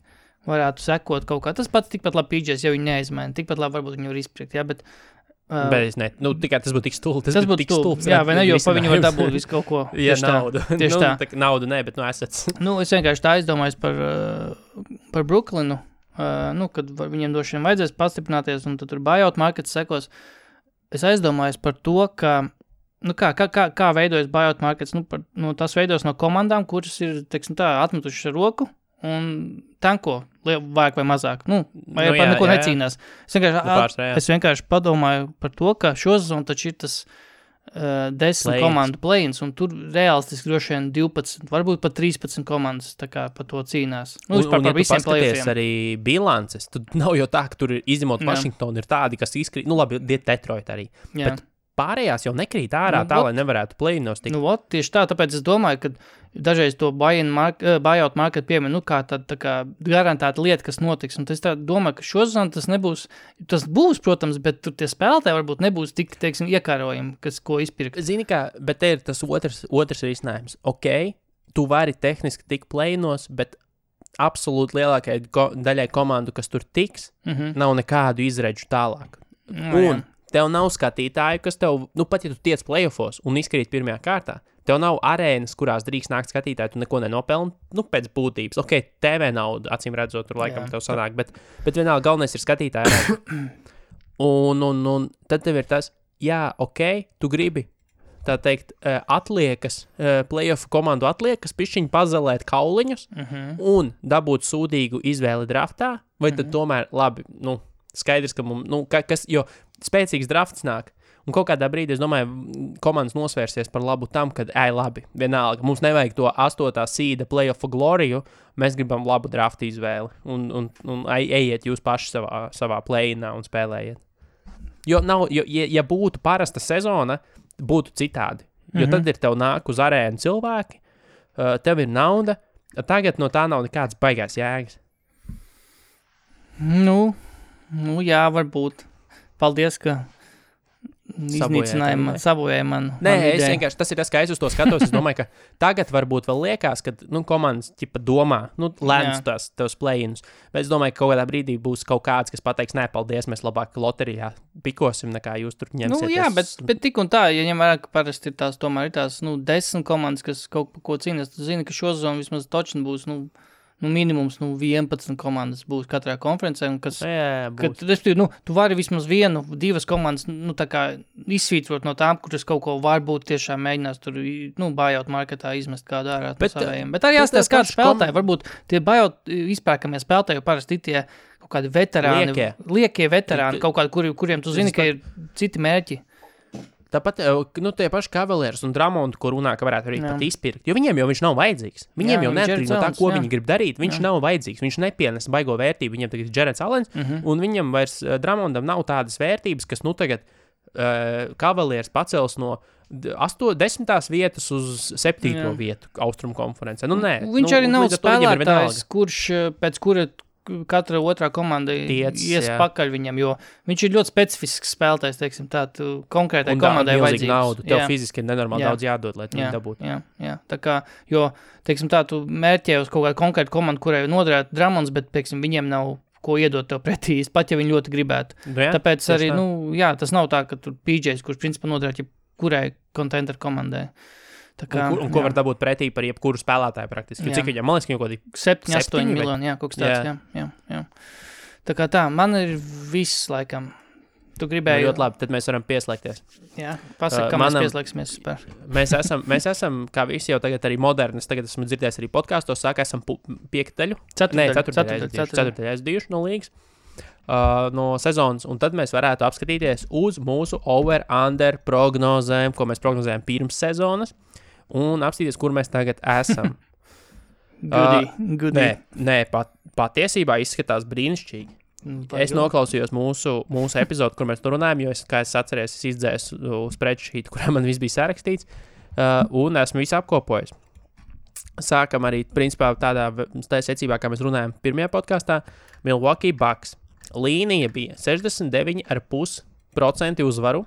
varētu sekot kaut kā. Tas pats tikpat labi PJs, ja viņi neizmaina. Tikpat labi varbūt viņi var izpriekt, bet... Bet es ne, tikai tas būtu tik stulbi. Tas būtu tik stulbi, jā, vai ne, jo pa viņu var dabūt visu kaut ko. Jā, naudu. Tieši tā. Naudu ne, bet assets. Es vienkārši tā aizdomājos par Brooklynu, kad viņiem došiem vajadzēs pastiprināties, un tad tur buyout markets sekos. Es aizdomājos par to, ka kā veidojas buyout markets, tas veidojas no komandām, kuras ir, teiksim tā, atmetušas ar roku un tanko, vajag vai mazāk, vai par neko necīnās. Es vienkārši padomāju par to, ka šo sezonu taču ir tas 10 komandu play-ins, un tur realistiski droši vien 12, varbūt pat 13 komandas tā kā par to cīnās. Un ja tu paskaties arī bilances, tad nav jau tā, ka tur izņemot Washington ir tādi, kas izkrīt, labi, Detroit arī. Jā. Bet pārējās jau nekrīt ārā lai nevarētu play-inos tikt. Tieši tā, tāpēc es domāju, ka dažreiz to buyout market piemin, kā tāda tā kā garantēta lieta, kas notiks. Un es tā domāju, ka šozon tas nebūs, tas būs, protams, bet tur tie spēlētāji varbūt nebūs tik, teiksim, iekārojumi, ko izpirkt. Zini kā, bet te ir tas otrs risinājums. Ok, tu vari tehniski tikt play-inos, bet absolūti lielākajai daļai komandu, kas tur tiks, nav nekādu izredžu tālāk. Tev nav skatītāju, kas tev, pat ja tu tiec playoffos un izkrīt pirmajā kārtā, tev nav arēnas, kurās drīkst nākt skatītāji, tu neko nenopelni, pēc būtības. Ok, TV nauda, acīm redzot, tur laikam tev sanāk, bet vienalga galvenais ir skatītāji. un tad tev ir tas, tu gribi, tā teikt, atliekas, playoff komandu atliekas, pišķiņi pazelēt kauliņus un dabūt sūdīgu izvēli draftā, vai tad tomēr, labi, skaidrs, ka mums, jo spēcīgs drafts nāk, un kaut kādā brīdī, es domāju, komandas nosvērsies par labu tam, kad, labi, vienalga, mums nevajag to 8. seeda playoff gloriju, mēs gribam labu draftu izvēli, un ejiet jūs paši savā play-inā un spēlējiet. Jo ja būtu parasta sezona, būtu citādi, jo tad ir tev nāk uz arēnu cilvēki, tev ir nauda, tagad no tā nav nekāds baigās jēgas. Jā, varbūt. Paldies, ka sabojāja man. Nē, es vienkārši, tas ir tas, kā es uz to skatos. Es domāju, ka tagad varbūt vēl liekas, ka komandas domā, lēns tavs play-ins. Bet es domāju, ka kaut kādā brīdī būs kaut kāds, kas pateiks, nē, paldies, mēs labāk loterijā pikosim, nekā jūs tur ņemsieties. Jā, bet tik un tā, ja ņem vērā, ka parasti ir tās 10 komandas, kas kaut par ko cīnās, tu zini, ka šo sezonu vismaz točni būs, minimums 11 komandas būs katrā konferencē, un tu vari vismaz 1-2 komandas tā kā izsvītrot no tām, kuras kaut ko varbūt tiešām mēģinās tur buyout marketā izmest kādu ārā no savējiem. Bet arī jāstāsta kādu spēlētāju, varbūt tie buyout izpērkamie spēlētāji jau parasti tie kaut kādi veterāni, liekie veterāni, kaut kādi, kuriem tu zini, ka ir citi mērķi. Tāpat, tie paši Cavaliers un Drummond, ko runā, ka varētu arī pat izpirkt, jo viņiem jau viņš nav vajadzīgs. Viņiem jau neatkarīgi no tā, ko viņi grib darīt, viņš nav vajadzīgs, viņš nepienes baigo vērtību, viņiem tagad ir Jareds Allens, un viņam vairs Drummondam nav tādas vērtības, kas, tagad Cavaliers pacels no 10. vietas uz 7. vietu Austrumu konferencē. Nē. Viņš arī nav spēlētājs, pēc kura katra otrā komanda ies pakaļ viņam, jo viņš ir ļoti specifisks spēlētājs, teiksim tā, konkrētai komandai vajadzības. Naudu. Tev fiziski ir nenormāli daudz jādod, lai tu viņu dabūtu. Jā, tā kā, jo, teiksim tā, tu mērķē uz kaut kādu konkrētu komandu, kurai noderētu Drummonds, bet, teiksim, viņiem nav ko iedot tev pretī, pat ja viņi ļoti gribētu. Tāpēc arī, tas nav tā, ka tur PJs, kurš principā noderētu kurai contender komandai. Kā, ko var dabūt pretī par jebkuru spēlētāju praktiski? Cik viņam, man liekas, kaut kādi 7-8 miljoni, kaut kas tāds, jā. Tā kā tā, man ir viss laikam. Tu gribēji... ļoti labi, tad mēs varam pieslēgties. Jā, pasaka, kā mēs pieslēgsimies super. Mēs esam, kā visi jau tagad arī modernis, tagad esmu dzirdējis arī podkastos, esam 5. daļu. 4. aizdījuši no līgas. No sezonas, un tad mēs varētu apskatīties uz mūsu over-under prognozēm, ko mēs prognozējam pirms sezonas, un apstīties, kur mēs tagad esam. Goodie. Nē, patiesībā izskatās brīnišķīgi. Es noklausījos mūsu epizodu, kur mēs tur runājam, jo, kā es atceros, es izdzēsu spreadsheet, kurā man viss bija sarakstīts, un esmu visu apkopojis. Sākam arī, principā, tādā secībā, kā mēs runājam pirmajā podkastā, Milwaukee Bucks. Līnija bija 69,5% uzvaru.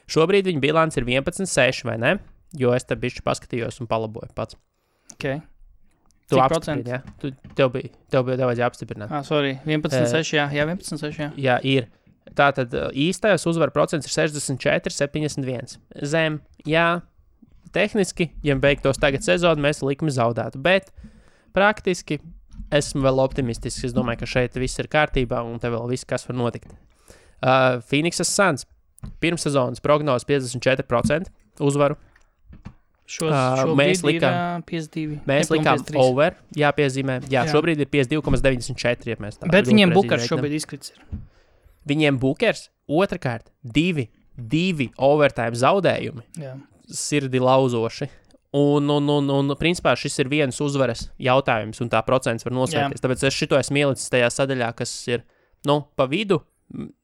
Šobrīd viņa bilants ir 11,6, vai ne? Jo es te bišķi paskatījos un palaboju pats. Ok. Tu apstiprini, jā? Tev vajadzēja apstiprināt. Sorry, 11,6, jā, 11,6, jā. Jā, ir. Tātad īstais uzvaru procents ir 64,71. Zem, jā, tehniski, ja beigtos tagad sezonu, mēs likmi zaudētu, bet praktiski esmu vēl optimistisks. Es domāju, ka šeit viss ir kārtībā un te vēl viss, kas var notikt. Phoenixas Suns pirmssezonas prognozes 54% uzvaru. Mēs likām 52. Mēs likām over, jāpiezīmē. Jā, šobrīd ir 52,94, ja mēs tā. Bet viņiem Bukers šobrīd izkrits ir. Viņiem Bukers, otrkārt, divi overtime zaudējumi. Jā. Sirdi lauzoši. Un principā šis ir viens uzvaras jautājums, un tā procents var nosvērties. Tāpēc es šito esmu ielicis tajā sadaļā, kas ir, pa vidu.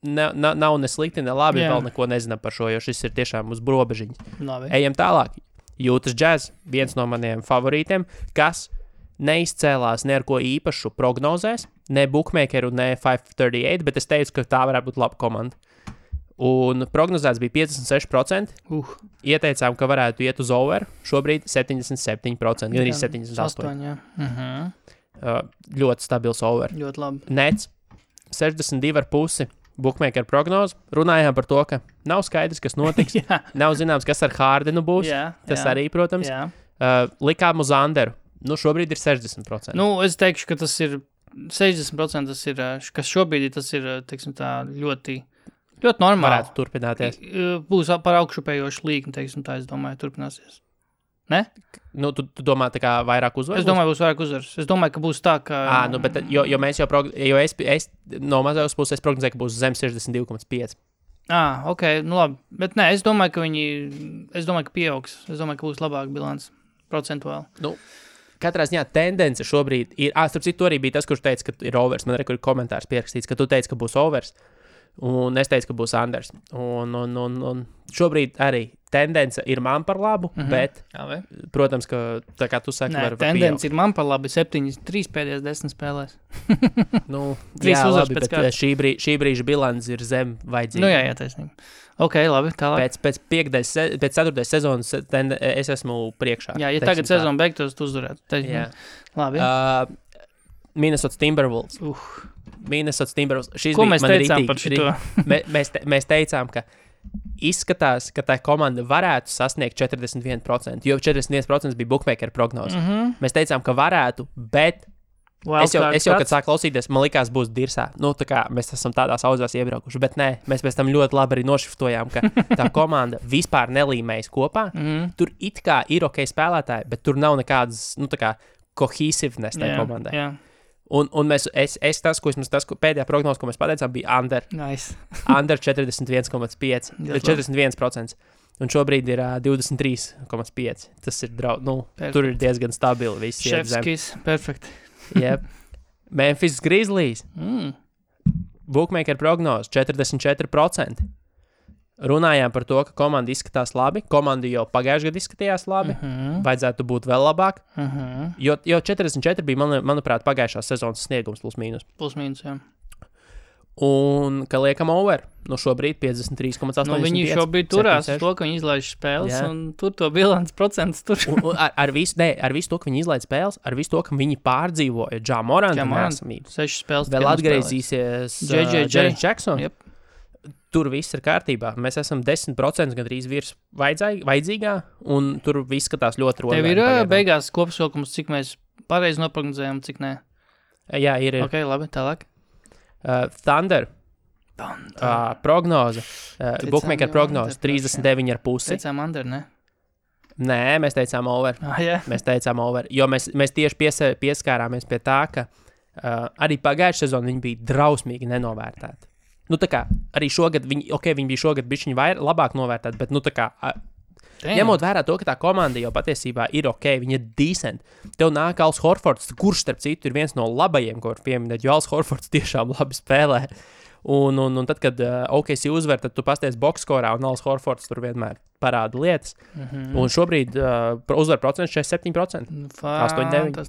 Nav ne slikti, ne labi, vēl neko nezinām par šo, jo šis ir tiešām uz robežiņas. Ejam tālāk. Utah Jazz, viens no maniem favorītiem, kas neizcēlās ne ar ko īpašu prognozēs, ne bookmakeru, ne 538, bet es teicu, ka tā varētu būt laba komanda. Un prognozēts bija 56%. Ieteicām, ka varētu iet uz over, šobrīd 77%, gan arī 78%. Ļoti stabils over. Ļoti labi. Nets, 62,5%. Bookmaker prognoze. Runājām par to, ka nav skaidrs, kas notiks. Nav zināms, kas ar Hardenu būs. Tas arī, protams. Likām uz Anderu. Šobrīd ir 60%. Es teikšu, ka tas ir 60%, tas ir, kas šobrīd tas ir, teiksim tā, ļoti normāli. Varētu turpināties. Būs par augšupējošu līkni, teiksim tā, es domāju, turpināsies. Ne? Tu domā tā kā vairāk uzvaru? Es domāju, būs vairāk uzvaru. Es domāju, ka būs tā, ka... Bet jo mēs jau es no mazās puses prognozēju, ka būs zem 62,5. Ok, labi. Bet nē, es domāju, ka pieaugs. Es domāju, ka būs labāk bilants procentuāli. Katrā ziņā tendence šobrīd ir... Starp citu, arī bija tas, kurš teica, ka ir overs. Man arī ir komentārs pierakstīts, ka tu teici, ka būs overs. Un es teicu, ka būs Anders. Un šobrīd arī tendence ir man par labu, bet, protams, ka tā kā tu saki, var tendence ir man par labu 7-3 pēdējās 10 spēlēs. 3 uzvaras pēc kārtas. Šī brīža bilants ir zem vajadzīga. Jā, taisnība. Ok, labi, tālāk. Pēc 4. sezonas es esmu priekšā. Jā, ja tagad sezona beigtos, tu uzvarētu. Jā. Labi. Minnesota Timberwolves. Minnesota Timberwolves. Ko mēs teicām par šito? Mēs teicām, ka izskatās, ka tā komanda varētu sasniegt 41%, jo 41% bija bookmaker prognoze. Mēs teicām, ka varētu, bet es jau kad sāku klausīties, man likās būs dirsā. Tā kā mēs esam tādās audzās iebraukuši, bet nē, mēs pēc tam ļoti labi arī nošiftojām, ka tā komanda vispār nelīmējas kopā. Tur it kā ir ok spēlētāji, bet tur nav nekādas, cohesiveness tajā komandai. Jā. Un tas pēdējā prognoze, ko mēs pateicām, bija under. Nice. Under 41,5. 41%. Un šobrīd ir 23,5%. Tas ir tur ir diezgan stabili. Visi Šefskis, perfekt. Yep. Memphis Grizzlies. Bookmaker prognoze 44%. Runājām par to, ka komanda izskatās labi. Komanda jau pagājušajā gadā izskatījās labi. Vajadzētu būt vēl labāk. Jo 44 bija, manuprāt, pagājušās sezonas sniegums plus mīnus. Plus mīnus, jā. Un, ka liekam over, šobrīd 53,85. Viņi šobrīd turās uz to, ka viņi izlaiž spēles, un tur to bilants procents tur. Ar visu to, ka viņi izlaiž spēles, ar visu to, ka viņi pārdzīvoja Ja Moranta nesamību. 6 spēles. Vēl atgriezīsies Jaren Jackson. Yep. Tur viss ir kārtībā. Mēs esam 10% gandrīz virs vajadzīgā, un tur viss skatās ļoti rodīgi. Tev ir beigās kopsavilkums, cik mēs pareizi noprognozējam, cik nē? Jā, ir. Ok, labi, tālāk. Thunder. Prognoze. Bookmaker prognoze 39,5. Teicām under, ne? Nē, mēs teicām over. Jā. Mēs teicām over, jo mēs tieši pieskārāmies pie tā, ka arī pagājušajā sezonā viņi bija drausmīgi nenovērtēti. Tā kā arī šogad viņi bija šogad bišķiņi labāk novērtēti, bet tā kā Ņemot vērā to, ka tā komanda jau patiesībā ir ok, viņa ir decent. Tev nāk Als Horfords, kurš starp citu ir viens no labajiem, ko var pieminēt, jo Als Horfords tiešām labi spēlē. Un tad, kad OKC uzvar, tad tu pasties boxskorā, un Als Horfords tur vienmēr parāda lietas. Un šobrīd uzvar procents 47%. 8-9.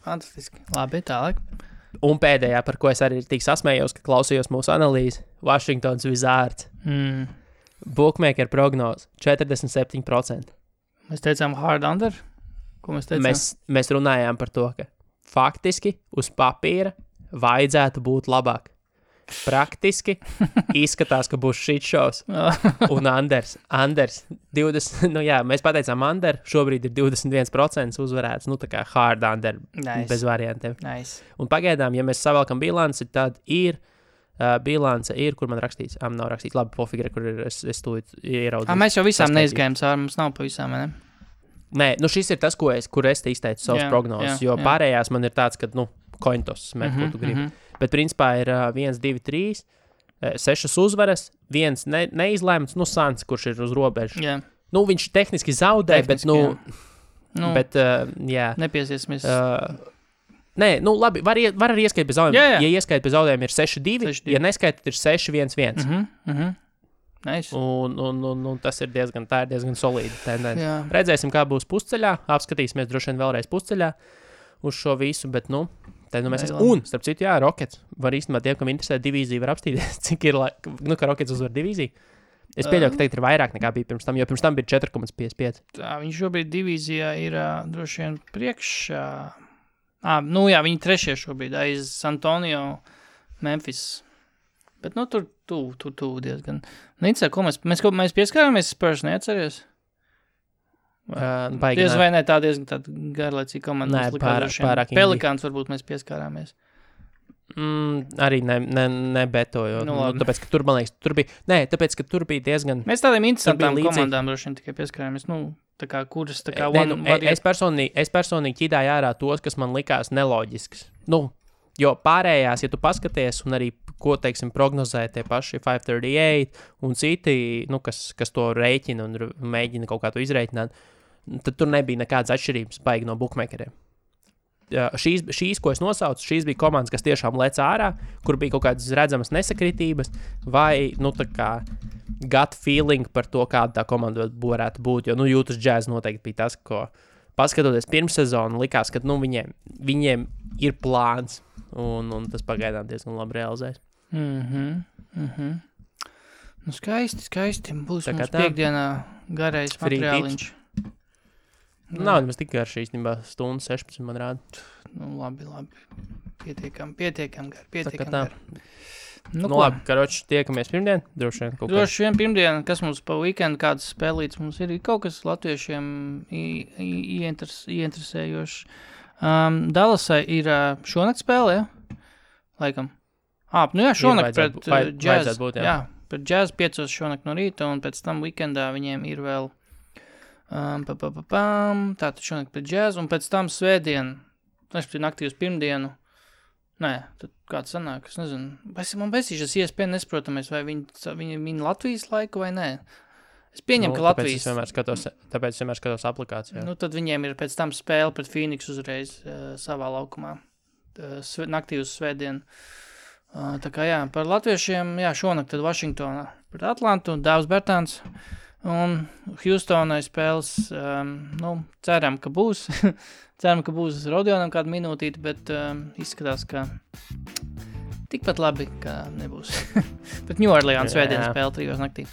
Fantastiski. Labi, tālāk. Un pēdējā, par ko es arī tik sasmējos, ka klausījos mūsu analīzi, Washingtons Wizards. Bookmaker prognoz 47%. Mēs teicām hard under? Ko mēs teicām? Mēs runājām par to, ka faktiski uz papīra vajadzētu būt labāk. Praktiski izskatās, ka būs shit shows. Un Anders 20, mēs pateicām under, šobrīd ir 21% uzvarēts, tā kā hard under, bez variantiem. Nice. Un pagaidām, ja mēs savalkam bilanci, tad ir bilance kur man rakstīts, nav rakstīts, labi, pofigre, kur ir, es tūlīt ieraudzīju. Mēs jau visām neizgājām cauri, mums nav pa visām, ne? Nē, šis ir tas, kur es te izteicu savus prognozes, jo pārējās man ir tāds, ka, kointos met, ko tu gribi. Bet principā ir 1, 2, 3, 6 uzvaras, 1 neizlēmts, Sans, kurš ir uz robežu. Yeah. Viņš tehniski zaudē, bet, nepiesiesimies. Nē, labi, var arī ieskait bez zaudējumiem. Jā. Ja ieskait bez zaudējumiem ir 6-2, ja neskait, tad ir 6-1-1. Nice. Un tas ir diezgan solīda tendence. Redzēsim, kā būs pusceļā, apskatīsimies droši vien vēlreiz pusceļā uz šo visu, bet, mēs esam. Un, starp citu, Rockets var īstenībā tiem, kam interesē divīzija, var apstīties, cik ir, ka Rockets uzvar divīziju. Es pieļauju, ka tagad ir vairāk nekā bija pirms tam, jo pirms tam bija 4,55. Viņš šobrīd divīzijā ir droši vien priekšā. Viņi trešie šobrīd aiz San Antonio, Memphis. Bet, tur diezgan. Nicā, ko mēs pieskārāmies Spurs, neatceries? Diez vai ne, tā diezgan garlaicīga komanda. Pārāk Pelikāns varbūt mēs pieskārāmies. Arī nebetoju. Tāpēc, ka tur, man liekas, tāpēc, ka tur bija diezgan... Mēs tādiem interesantām komandām droši vien tikai pieskārāmies. Tā kā kuras, tā kā... Es personīgi ķidāju ārā tos, kas man likās neloģisks. Jo pārējās, ja tu paskaties un arī, ko, teiksim, prognozē tie paši 538 un citi, kas to rēķina un mēģina kaut kā to izrēķināt, tad tur nebija nekādas atšķirības baigi no bookmakeriem. Šīs, ko es nosaucu, šīs bija komandas, kas tiešām lec ārā, kur bija kaut kādas redzamas nesakritības, vai, tā kā gut feeling par to, kāda tā komanda varētu būt, jo, Utah Jazz noteikti bija tas, ko paskatoties pirms sezonu, likās, ka, viņiem ir plāns, un tas pagaidām diezgan labi realizēs. Skaisti. Būs mums piekdienā garais materiāliņš. Nav, mēs tik garš īstenībā stundu 16 man rāda. Labi. Pietiekam gar. Labi, karoči, tiekamies pirmdien. Droši vien pirmdien, kas mums pa weekendu, kādas spēlītas mums ir kaut kas latviešiem ieinteresējošs. Dallasai ir šonakt spēle, ja? Laikam. Šonakt pret Jazz. Pret Jazz 5 šonakt no rīta, un pēc tam weekendā viņiem ir vēl tātad šonakt pret Jazz, un pēc tam svētdien, naktī uz pirmdienu, tad kāds sanāk, es nezinu, man besīšas iespēja nesprotamies, vai viņi Latvijas laiku vai nē. Es pieņemu, ka Latvijas... Tāpēc es vienmēr skatos aplikācijā. Tad viņiem ir pēc tam spēle pret Phoenix uzreiz savā laukumā, naktī uz svētdienu. Tā kā par latviešiem, šonakt tad Vašingtonā pret Atlantu, Dāvs Bertāns. Un Houstonai spēles, ceram, ka būs. Ceram, ka būs Rodionam kādu minūtīti, bet izskatās, ka tikpat labi, ka nebūs. Bet New Orleans svētdienas spēle 3 naktī.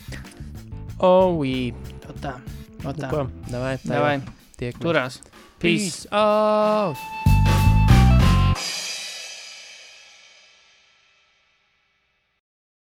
Tā. Davai. Turās. Peace. out.